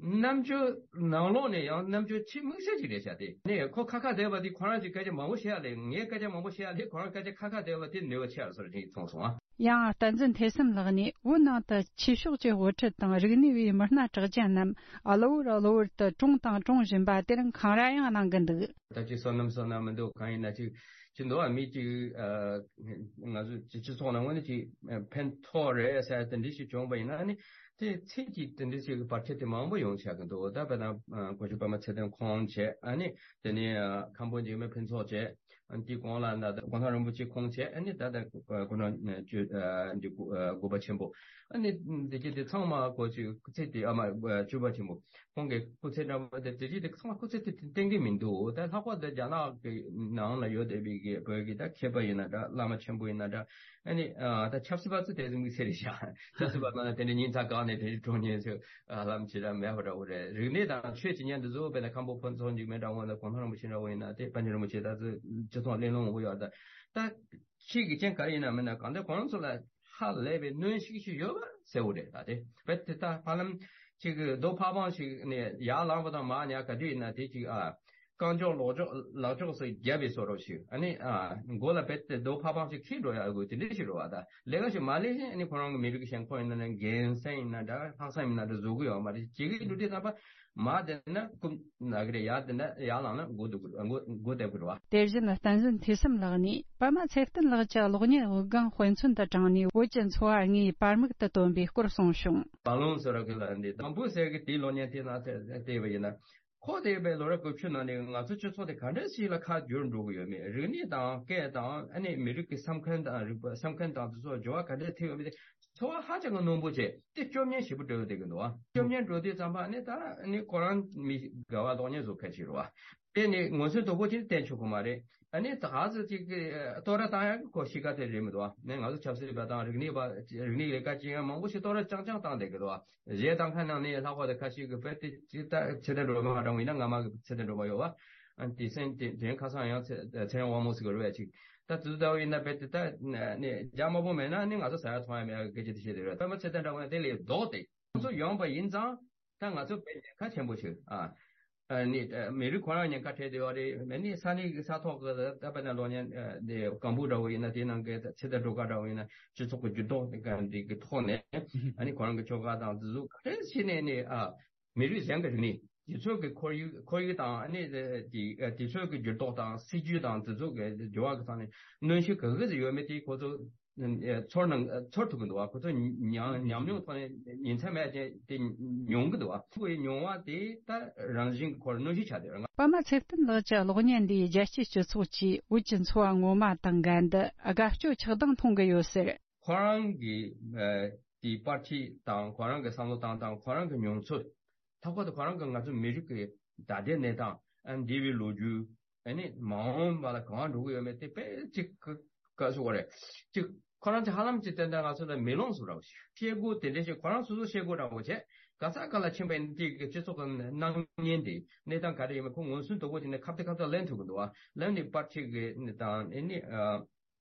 རྣམ་དཔྱོད་ནང་ལོགས་ནས་ཡང་རྣམ་དཔྱོད་ཆེས་དམིགས་བསལ་ཅིག་རེད་ཤག་དེ་ནས་ཁོ་ཁ་ཁ་བསྡད་པ་དེ་ཁོ་རང་གི་སྐད་ཆ་མང་པོ་བཤད་ཡ་ལས་ངའི་སྐད་ཆ་མང་པོ་བཤད་ཡ་ལས་ཁོ་རང་སྐད་ཆ་ཁ་ཁ་བསྡད་པ་དེ་ནུས་པ་ཆེ་བ་བཟོ་འདྲ་ཅིག་མཐོང་སོང་ཨ། ཡང་བསྟན་འཛིན་ཐོས་བསམ་ལགས་ནས་བོད་ནང་དུ་ཆོས་ཕྱོགས་ཀྱི་དབུ་ཁྲིད་དང་རིག་གནས་པའི་མི་སྣ་གྲགས་ཅན་རྣམས་གློ་བུར་གློ་བུར་དུ་གྲོངས་དང་གྲོངས་བཞིན་པ་དེ་རིང་འཁང་ར་ཡང་གནང་གི་འདུག་ད་ཅིག་བསོད་ནམས་བསོད་ནམས་མི་འདུག་གང་ཡིན་ན་ཅིག་ཅི་འདུག་ཨ་མི་ཅིག་ང་ཚོ་སྤྱི་སྤྱི་ཚོགས་ནང་ངོས་ནས་ཅིག་ཕན་ཐོགས་རེད་ཟེར་དེ་འདྲ་ཞིག་བྱུང་བ་ཡིན་ན་ཨ་ནི་དེ་ཚིག་གཅིག་དེ་འདྲ་ཞིག་གི་བར་ཆད་དེ་མང་པོ་ཡོང་ཆགས་ཀྱི་འདུག་ད་དཔེར་ན་སྐུ་ཞབས་པདྨ་ཚེ་བརྟན་ཁོང་བྱས་ཨ་ནི་དེ་ནས་མཁན་པོ་འཇིགས་མེད་ཕུན་ཚོགས་བྱས། ཨ་ནི་དེའི་གོང་ལ་ན་ད་གོང་ས་རིན་པོ་ཆེ་ཁོང་བྱས། ཨ་ནི་ད་ད་ཁོ་རང་ཨ་བཅུ་ཨ་འདི་དགུ་ཨ་དགུ་པ་ཆེན་པོ། ཨ་ནི་འདི་གྱད་དེ་ཚང་མ་ཁོ་ཅིག་སྐུ་ཚེ་དེ་ཨ་མ་ཨ་བཅུ་པ་ཆེན་པོ་ཁོང་གི་སྐུ་ཚེ་འདྲ་པོ་དེ་དེ་གྱད་དེ་ཚང་མ་སྐུ་ཚེ་དེ་བརྟན་གྱི་མི་འདུག་ད་ལྷག་པར་དུ་རྒྱ་ནག་གི་ནང་ལ་ཡོད་བསྡད་པའི་གི་བོད་ཀྱི་ད་མཁས་པ་ཡིན་ན་འདྲ་བླ་མ་ཆེན་པོ་ཡིན་ན་འདྲ། ཨ་ནི་ཨ་ད་ཆབ་སྲིད་པ་ཚོ་དེ་ཚོ་དམིགས་བསལ་རེད་ཤག་ཆབ་སྲིད་པ་ཚོ་ན་དེ་འདྲ་ཉིན་ཚག་གང་ནས་དེ་འདྲ་གྲོངས་ཉེན་ཚོ། ཨ་ལམ་ཅི་ར་མེད་པ་འདྲ་བོ་རེད། རིག་གནས་དང་ཆོས་ཀྱི་ཉམས་འདི་ཚོ་དཔེར་ན་མཁན་པོ་ཕུན་ཚོགས་འཇིགས་མེད་འདྲ་བོ་ན་གོང་ས་རིན་པོ་ཆེ་འདྲ་བོ་ཡིན་ན་དེ་པཎ་ཆེན་རིན་པོ་ཆེ་ད་ཚོ་སྤྱི་ཚོགས་གླེང་སློང་བོ་ཡོད་ད། ད་ཆོས་ཀྱི་རྐྱེན་ག་རེ་ཡིན་ན་མིན་ན་གང་ལྟར་ཁོང་ཚོ་ལ་ཧ་ལས་པའི་གནོན་ཤུགས་ཤིག་ཡོད་པ་གསལ་བོ་རེད་ད། དེ་བས་དེ་ད་ཧ་ལམ་ཅིག་གི་རྡོ་ཕ་བང་ཞིག་ནས་ཡར་ལངས་པ་དང་མར་ཉལ་ག་དུས་ཡིན་ན་དེ་ཅིག་ཨ། རྐང་ལྕོག་ལོག་ལྕོག་ལག་ལྕོག་སོགས་བརྒྱབ་པའི་བཟོ་འདྲ་ཞིག་ཨ་ནི་ཨ་མགོ་ལ་བེད་དེ་རྡོ་ཕ་བང་ཞིག་འཁྱེར་འགྲོ་ཡག་དགོས་དེ་འདྲ་ཞིག་རེད་བ། ད་ལས་ཀ་ཞིག་མ་ལས་ཤིང་ཨ་ནི་ཁོ་རང་གི་མི་རིགས་ཀྱི་ཞེན་ཁོག་ཡིན་ན་ནི་རྒན་སེང་ཡིན་ན་འདྲ་ལྷག་བསམ་ཡིན་ན་འདྲ་བཟོ་གི་ཡོད་མ་རེད། ཇི་གི་འགྲོ་དུས་ཙམ་པ་མར་བསྡད་ན་རྐུབ་ན་གི་རེད། ཡར་བསྡད་ན་ཡར་ལངས་ན་མགོ་སྡུག་གི་མགོ་མགོ་བསྡད་གི་རེད་བ། དེ་བཞིན་བསྟན་འཛིན་ཐོས་བསམ་ལགས་ནས་པདྨ་ཚེ་བརྟན་ལགས་ཀྱི་གློག་བརྙན་དབུགས་ལྒང་དཔེ་མཚོན་དུ་དྲངས་ནས་བོད་ཀྱི་འཚོ་བ་དངོས་པར་མིག་ཏུ་སྟོན་པའི་སྐོར་གསུངས་བྱུང་། བ་ལུང་ཟེར་བ་གི་ལ་འདི་དང་པོ་ཟེར་གི་དེའི་གློག་བརྙན་དེ་ནང་བལྟས་པ་ཡིན་ན། ཁོ་དེ་བས་ལོ་རབས་དགུ་བཅུ་ནང་ནས་ང་ཚོ་སྤྱི་ཚོགས་དེ་ག་འདྲ་ཞིག་ལ་ཁ་བསྒྱུར་འགྲོ་གི་ཡོད་མེད། རིག་གནས་དང་སྐད་དང་ཨ་ནི་མི་རིགས་ཀྱི་བསམ་མཁན་དང་རིག་པ་བསམ་མཁན་དང་དེ་ཚོ་འགྱུར་བ་ག་འདྲ་ཐེབས་ཡོད་མེད་དེ་ཚོར་བ་ཧ་ཅང་གི་རྣོན་པོ་བྱས་ཏེ་སྐྱོབ་ཉན་ཞེ་པོ་སྤྲོད་བསྡད་ཀྱི་འདུག་བ། སྐྱོབ་ཉན་འགྲོ་དུས་ཙམ་པ་ཨ་ནི་ད་ཨ་ནི་ཁོ་རང་མི་དགའ་བ་གློག་བརྙན་བཟོ་མཁན་ཞིག་རེད་བ། དེ་ནི་ངོས་འཛིན་དོད་པོ་ཅིག་བསྟན་ཆོག་གི་མ་རེད། ཨ་ནི་ད་ག་ཚོད་ཅིག་གི་བསྟོད་ར་བཏང་ཡག་གི་ཁོ་གཤིས་ཀ་དེ་རེད་མི་འདུག་བ། ནས་ང་ཚོ་ཆབ་སྲིད་པ་དང་རིག་གནས་པ་རིག་གནས་ལས་ཀ་བྱེད་མཁན་མང་པོ་ཞིག་བསྟོད་ར་རྐྱང་རྐྱང་བཏང་བསྡད་ཀྱི་འདུག་བ། གཞས་བཏང་མཁན་ནང་ནས་ལྷག་པར་དུ་ཁ་ཤས་ཀྱིས་བོད་དེ་ཅིག་ད་ཚེ་བརྟན་སྒྲོལ་མ་འདྲ་བོ་ཡིན་ན་ང་མ་གི་ཚེ་བརྟན་སྒྲོལ་མ་ཡོད་བ། ཨ་དེ་སེམས་དེ་དྲན་ཁ་སང་ཡང་ཚེ་ཚེ་རིང་དབང་མོ་ཟེར་གི་རེད་བས་ཅིག་ད་དུས་ད་བོ་ཡིན་ན་བོད་དེ་ད་ནས་རྒྱ་དམར་པོ་མེད་ན་ནི་ང་ཚོ་ཟ་ཡ་འཐུང་ཡ་མེད་ཡ་གི་སྐད་ཆ་དེ་བཤད་དེ་རེད། པདྨ་ཚེ་བརྟན་འདྲ་བོ་ཡིན་ན་དེ་ལས་ལྡོག་སྟེ་ང་ཚོ་ཡོང་པ་ཡིན་ཙང་ད་ང་ཚོ་བོད་ཉེན་ཁ་ཆེན་པོ་ཞིག་ཨ། ཨ་ནི་ཨ་མི་རིགས་ཁོ་རང་ཉེན་ཁ་འཕྲད་བསྡད་ཡོད་རེད། མ་ནི་ས་གནས་ཀྱི་ས་ཐོག་གི་ད་དཔེར་ན་གློག་བརྙན་ཨ་དེ་སྒང་འབུ་འདྲ་བོ་ཡིན་ན་དེ་ནང་གི་ཚེ་བརྟན་སྒྲོལ་དཀར་འདྲ་བོ་ཡིན་ན་སྤྱི་ཚོགས་ཀྱི་འགྱུར་ལྡོག་དེ་ག་འདི་གི་ཐོག་ནས་ཨ་ནི་ཁོ་རང་གི་ཆོལ་ཁ་དང་འཛིན་བཟུང་ག་རེ་བྱས་ནས་ནི་ཨ་མི་རིགས་གཞན་གྱི་རིག་གནས་ དེ་ཚོ་གི་ཁོར་ཡུག་ཁོར་ཡུག་དང་ཨ་ནི་དེ་དེ་ཚོ་གི་འགྱུར་ལྡོག་དང་སྲིད་ཇུས་དང་དེ་ཚོ་གི་འགྱུར་བ་གི་ཐོག་ནས་གནོན་ཤུགས་ག་གི་ཟིག་ཡོད་མེད་དེ་ཁོ་ཚོ་ཚོར་ནང་ཚོར་ཐུབ་ཀྱི་འདུག་བ། ཁོ་ཚོ་ཉམས་ཉམས་མྱོང་ཐོག་ནས་ཉིན་མཚན་མེད་ཅིག་དེ་མྱོང་གི་འདུག་བ། ཁོ་ཡི་མྱོང་བ་དེ་ད་རང་བཞིན་གྱི་ཁོར་གནོན་ཤུགས་ཆགས་བསྡད་ཡོད། པདྨ་ཚེ་བརྟན་ལགས་ཀྱི་གློག་བརྙན་འདིས་རྒྱལ་སྤྱིའི་སྤྱི་ཚོགས་ཀྱིས་བོད་ཀྱི་འཚོ་བ་ངོ་མ་དང་འགལ་འདུ་དགའ་སྐྱོ་ཆགས་སྡང་མཐོང་གི་ཡོད་ཟེར། ཁོ་རང་གི་ཨ་དེའི་པར་ཆས་དང་ཁོ་རང་གི་བསམ་བློ་བཏང་སྟངས་ཁོ་རང་གི་མྱོང་ཚོར། ལྷག་པར་དུ་ཁོ་རང་གི་ང་ཚོ་མི་རིགས་ཀྱི་ད་ལྟའི་གནས་སྟངས་ཨ་འདས་པའི་ལོ་རྒྱུས་ཨ་ནི་མ་འོངས་པ་ལ་གང་འགྲོ་གི་ཡོད་མེད་དེ་དཔེ་གཅིག་ག་ག་ཟེར་དགོས་རེད། གཅིག་ཁོ་རང་ཚོ་ཧ་ལམ་གཅིག་ཏན་ཏན་ང་ཚོ་ལ་མེ་ལོང་བཟོ་འདྲ་བོ་ཞིག་བཤད་སྒོ་དེ་འདྲ་ཞིག་ཁོ་རང་སོ་སོ་བཤད་སྒོ་འདྲ་བོ་བྱས་ག་ས་ག་ལ་ཕྱིན་པ་ཡིན་དེ་གི་སྤྱི་ཚོགས་ཀྱི་སྣང་བརྙན་དེ་གནས་སྟངས་ག་རེ་ཡོད་མེད་ཁོ་ངོས་ཟིན་དོད་པོ་བྱས་ནས་ཁ་བརྡ་ཁ་བརྡ་ལེན་ཐུབ་ཀྱི་འདུག་བ། ལེན་ནས་པར་ཆས་གི་དང་ཨ་ནི་ཨ།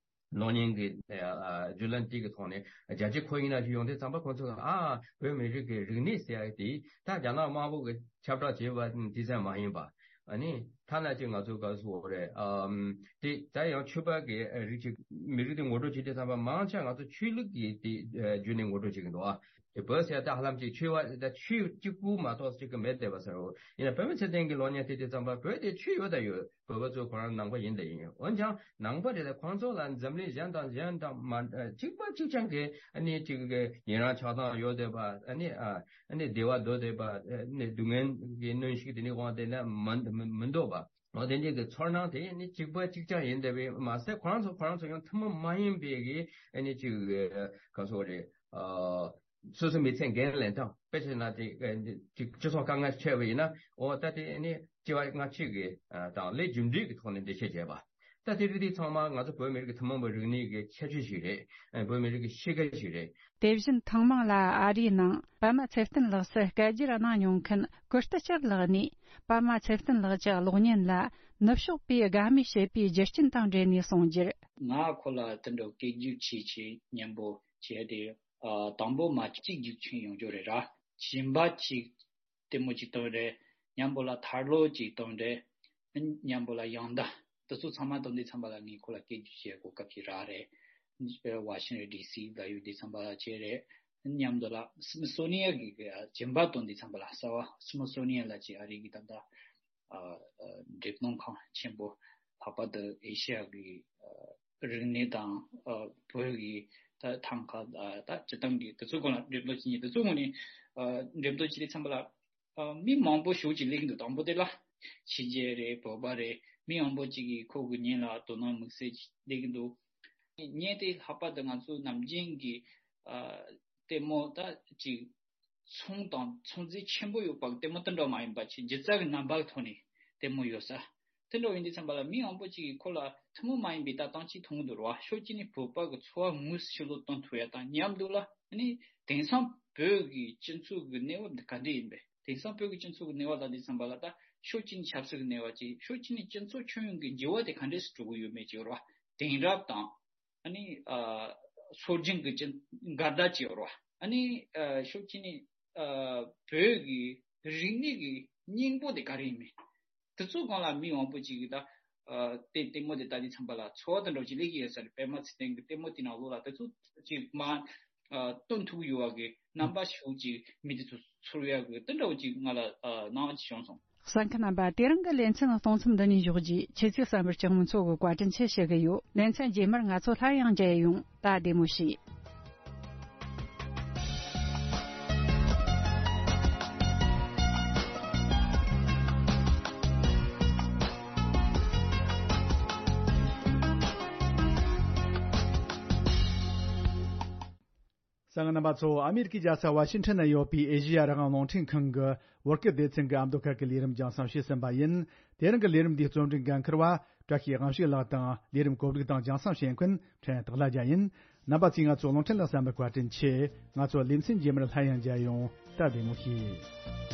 གློག་བརྙན་གྱི་ཨ་བརྒྱུད་ལམ་དེ་གི་ཐོག་ནས་རྒྱལ་སྤྱི་ཁོར་ཡུག་ནང་ཞིག་ཡོང་དུས་ཙམ་པ་ཁོང་ཚོས་ཨ་བོད་མི་རིགས་ཀྱི་རིག་གནས་ཟེར་ཡག་དེ་ད་རྒྱ་ནག་དམར་པོ་གི་ཁྱབ་བསྒྲགས་བྱས་པ་དེ་ཙམ་མ་ཡིན་པ། ཨ་ནི་ཐ་ན་ཅིག་ང་ཚོ་ག་ཟེར་དགོས་རེད། ཨམ་དེ་ད་ཡང་ཆོས་པ་གི་རིགས་ཅིག་མི་རིགས་དེ་ངོ་སྤྲོད་བྱེད་དུས་ཙམ་པ་མང་ཆེ་ང་ཚོ་ཆོས་ལུགས་ཀྱི་དེ་བརྒྱུད་ནས་ངོ་སྤྲོད་བྱེད་ཀྱི་འདུག་ཨ། དེ་བོད་ཟེར་ད་ཧ་ལམ་ཅིག་ཆོས་པ་ད་ཆོས་གཅིག་པུ་མ་གཏོགས་ཅིག་གི་མེད་བསྡད་པ་ཟེར་རོ། ཡིན་ན་པདྨ་ཚེ་བརྟན་གྱི་གློག་བརྙན་དེ་དུས་ཙམ་པ་བོད་དེ་ཆོས་ཡོད་ད་ཡོད། བོད་པ་ཚོ་ཁོ་རང་ནང་པ་ཡིན་ད་ཡིན། འོན་ཀྱང་ནང་པ་རེད་ད་ཁོང་ཚོ་ལ་འཛམ་གླིང་གཞན་དང་གཞན་དང་མ་གཅིག་པ་གཅིག་རྐྱང་གི་ཨ་ནི་ཅིག་གི་ཡི་རང་ཆགས་སྡང་ཡོད་བསྡད་པ་ཨ་ནི་ཨ་ཨ་ནི་བདེ་བ་འདོད་བསྡད་པ་ཨ་ནི་སྡུག་བསྔལ་གྱི་གནོན་ཤུགས་དེ་ནི་དབང་དེ་ལ་མི་མི་མི་འདོད་པ། འོ་དེ་འདྲའི་གི་ཚོར་སྣང་དེ་ནི་གཅིག་པ་གཅིག་རྐྱང་ཡིན་བསྡད་པས་མ་ཟད་ཁོ་རང་ཚོ་ཁོ་རང་ཚོ་ཡང་ཐུན་མོང་མ་ཡིན་པའི་གི་ཨ་ནི་ཅིག་ག་ཟེར་དགོས་རེད། སོ་སོའི་མི་ཚེ་འགན་ལེན་སྟངས་དཔེ་བྱས་ན་དེ་ཅིག་སྤྱི་ཚོགས་དཀའ་ངལ་འཕྲད་པ་ཡིན་ན་འོ་ད་དེ་ནི་སྐྱེ་བ་སྔ་ཕྱི་གི་དང་ལས་རྒྱུ་འབྲས་ཀྱི་ཐོག་ནས་འགྲེལ་བཤད་བྱས་པ། ད་དེ་རིགས་དེ་ཚང་མ་ང་ཚོ་བོད་མི་རིགས་ཀྱི་ཐུན་མོང་གི་རིག་གནས་ཀྱི་ཁྱད་ཆོས་ཤིག་རེད། བོད་མི་རིགས་ཀྱི་གཤིས་ཀ་ཞིག་རེད། དེ་བཞིན་ཐེངས་མང་ལ་ཨ་རིའི་ནང་པདྨ་ཚེ་བརྟན་ལགས་སུ་སྐད་སྒྱུར་གནང་མྱོང་མཁན་ཀུར་སྟི་ལྕགས་ལགས་ནས་པདྨ་ཚེ་བརྟན་ལགས་ཀྱི་གློག་བརྙན་ལ་ནུབ་ཕྱོགས་པས་དགའ་མོས་བྱེད་པའི་རྒྱུ་རྐྱེན་དང་འབྲེལ་ནས་གསུངས་རྒྱུར། ང་ཁོ་ལ་དེ་འདྲ་སྐད་སྒྱུར་བྱས་བྱས་མཉམ་པོ་བྱས་ཏེ། ཨ། དང་པོ་མ་གཅིག་རྒྱུག་ཆེན་ཡོང་རྒྱུ་རེད་ར། གཞན་པ་གཅིག་ལྟད་མོ་གཅིག་སྟོན་རེད། མཉམ་པོ་ལ་ཐར་ལོ་གཅིག་སྟོན་རེད། མཉམ་པོ་ལ་ཡང་ད་དེ་ཚོ་ཚང་མ་སྟོན་དུས་ཙམ་པ་ལ་ངས་ཁོ་ལ་སྐད་སྒྱུར་བྱེད་གོ་སྐབས་ཅིག་རག་རེད། ཝ་ཤིང་ཊོན་ཌི་སི་ལ་ཡོད་དུས་ཙམ་པ་ལ་བྱས་རེད། མཉམ་དུ་ལ་སི་མི་སོ་ནི་ཡན་གྱི་གཞན་པ་སྟོན་དུས་ཙམ་པ་ལ་གསར་བ་སི་མི་སོ་ནི་ཡན་ལ་ཅིག་ཨ་རི་གི་ད་ལྟ་ཨ་ཨ་འགྲེམས་སྟོན་ཁང་ཆེན་པོ་ལྷག་པར་དུ་ཨེ་ཤི་ཡ་གི་ཨ་རིག་གནས་དང་ཨ་བོད་ཀྱི་ད་ཐང་ཀ་ཨ་ད་སྤྱི་བཏང་གི་དེ་ཚོའི་སྐོར་ལ་འགྲེམས་སྟོན་བྱེད་མཁན་དེ་ཚོའི་ངོས་ནས་ཨ་འགྲེམས་སྟོན་བྱེད་དུས་ཙམ་པ་ལ་ཨ་མི་མང་པོ་ཞེ་པོ་ཅིག་སླེབས་ཀྱི་འདུག་དང་པོ་དེ་ལ་ཕྱི་རྒྱལ་རེད། བོད་པ་རེད། མི་མང་པོ་ཅིག་གིས་ཁོ་གི་བརྙན་ལ་དོ་སྣང་དམིགས་བསལ་སླེབས་ཀྱི་འདུག་བརྙན་དེ་ལྷག་པར་དུ་ང་ཚོ་ནམ་རྒྱུན་གྱི་ཨ་ལྟད་མོ་ད་ཅིག་ཚོང་དང་ཚོང་རྫས་ཆེན་པོ་ཡོད་པ་གི་ལྟད་མོ་དེ་འདྲ་མ་ཡིན་པ་ཅིག་སྒྱུ་རྩལ་གྱི་རྣམ་པ་གི་ཐོག་ནས་ལྟད་མོ་ཡོད་ས། དེ་འདྲ་ཡིན་དུས་ཙམ་པ་ལ་མི་མང་པོ་ཅིག་གིས་ཁོ་ལ་ཐུན་མོང་མ་ཡིན་པའི་ལྟ་སྟངས་ཅིག་མཐོང་གི་འདུག་ར། ཕྱོགས་གཅིག་ནས་བོད་པ་གི་འཚོ་བ་དངོས་སུ་ཕྱི་ལོགས་སྟོན་ཐུབ་ཡ་དང་མཉམ་དུ་ལ་ཨ་ནི་དེང་སང་བོད་ཀྱི་སྤྱི་ཚོགས་ཀྱི་གནས་བབ་འདི་ག་འདྲ་ཡིན་པས། དེང་སང་བོད་ཀྱི་སྤྱི་ཚོགས་ཀྱི་གནས་བབ་ལ་དུས་ཙམ་པ་ལ་ད་ཕྱོགས་གཅིག་ནས་ཆབ་སྲིད་ཀྱི་གནས་བབ་ཅིག་ཕྱོགས་གཅིག་ནས་སྤྱི་ཚོགས་ཁྱོན་ཡོངས་ཀྱི་འགྱུར་བ་དེ་ག་འདྲས་སུ་འགྲོ་གི་ཡོད་མེད་ཅིག་ར། དེང་རབས་དང་ཨ་ནི་ཨ་སྲོལ་རྒྱུན་གྱི་ཅི་འགལ་ཟླ་ཅིག་ཡོད་རེད་བ། ཨ་ནི་ཨ་ཕྱོགས་གཅིག་ནས་ཨ་བོད་ཀྱི་རིག་གནས་ཀྱི་སྙིང་པོ་དེ་ག་རེ་ཡིན་མིན། དེ་ཚོ་སྒང་ལ་མི་མང་པོ་ཅིག་གིས་ད་ཨ་དེ་ལྟད་མོ་དེ་ལྟ་དུས་ཙམ་པ་ལ་ཚོར་བ་དེ་འདྲ་ཅིག་སླེབས་ཀྱི་ཡོད་ས་རེད། པདྨ་ཚེ་བརྟན་གྱི་ལྟད་མོ་དེ་ནང་ལོགས་ལ་དེ་ཚོ་ཅིག་མ་ཨ་སྟོན་ཐུབ་ཡོད་པ་གི་རྣམ་པ་ཞིག་ཅིག་མི་དེ་ཚོ་ཚོར་ཡག་གི་དེ་འདྲ་ཅིག་ང་ལ་ཨ་སྣང་བ་ཅིག་བྱུང་སོང་། གསན་མཁན་རྣམ་པ། དེ་རིང་གི་ལེ་ཚན་གཏོང་མཚམས་འདི་ནས་འཇོག་རྒྱུ། ཁྱེད་ཚོས་གསན་པར་སྤྱི་དམངས་ཚོགས་ཀྱི་བཀའ་དྲིན་ཆེ་ཞུ་གི་ཡོད། ལེ་ཚན་རྗེས་མར་ང་ཚོ་སླར་ཡང་མཇལ་ཡོང་། ད་བདེ་མོ་བྱོས། གསན་མཁན་རྣམ་པ་ཚོ། ཨ་མེ་རི་ཀའི་རྒྱལ་ས་ཝ་ཤིང་ཊོན་ན་ཡོད་པའི་ཨེ་ཤེ་ཡ་རང་དབང་རླུང་འཕྲིན་ཁང་གི་བོད་སྐད་སྡེ་ཚན་གྱི་ཨ་མདོ་ཁག་གི་ལས་རིམ་རྒྱང་སྲིང་བྱས་ཟིན་པ་ཡིན། དེ་རིང་གི་ལས་རིམ་འདིའི་རྩོམ་སྒྲིག་འགན་འཁུར་བ་བཀྲ་ཤིས་དབང་ཕྱུག་ལགས་དང་། ལས་རིམ་གོ་སྒྲིག་དང་རྒྱང་སྲིང་བྱེད་མཁན་ཕྲན་སྟག་ལྷ་རྒྱལ་ཡིན། རྣམ་པ་ཚོས་ང་ཚོ་རླུང་འཕྲིན་ལ་གསན་པར་བཀའ་དྲིན་ཆེ། ང་ཚོ་ལེ་ཚན་རྗེས་མར་སླར་ཡང་མཇལ་ཡོང་། ད་བདེ་མོ་བྱོས།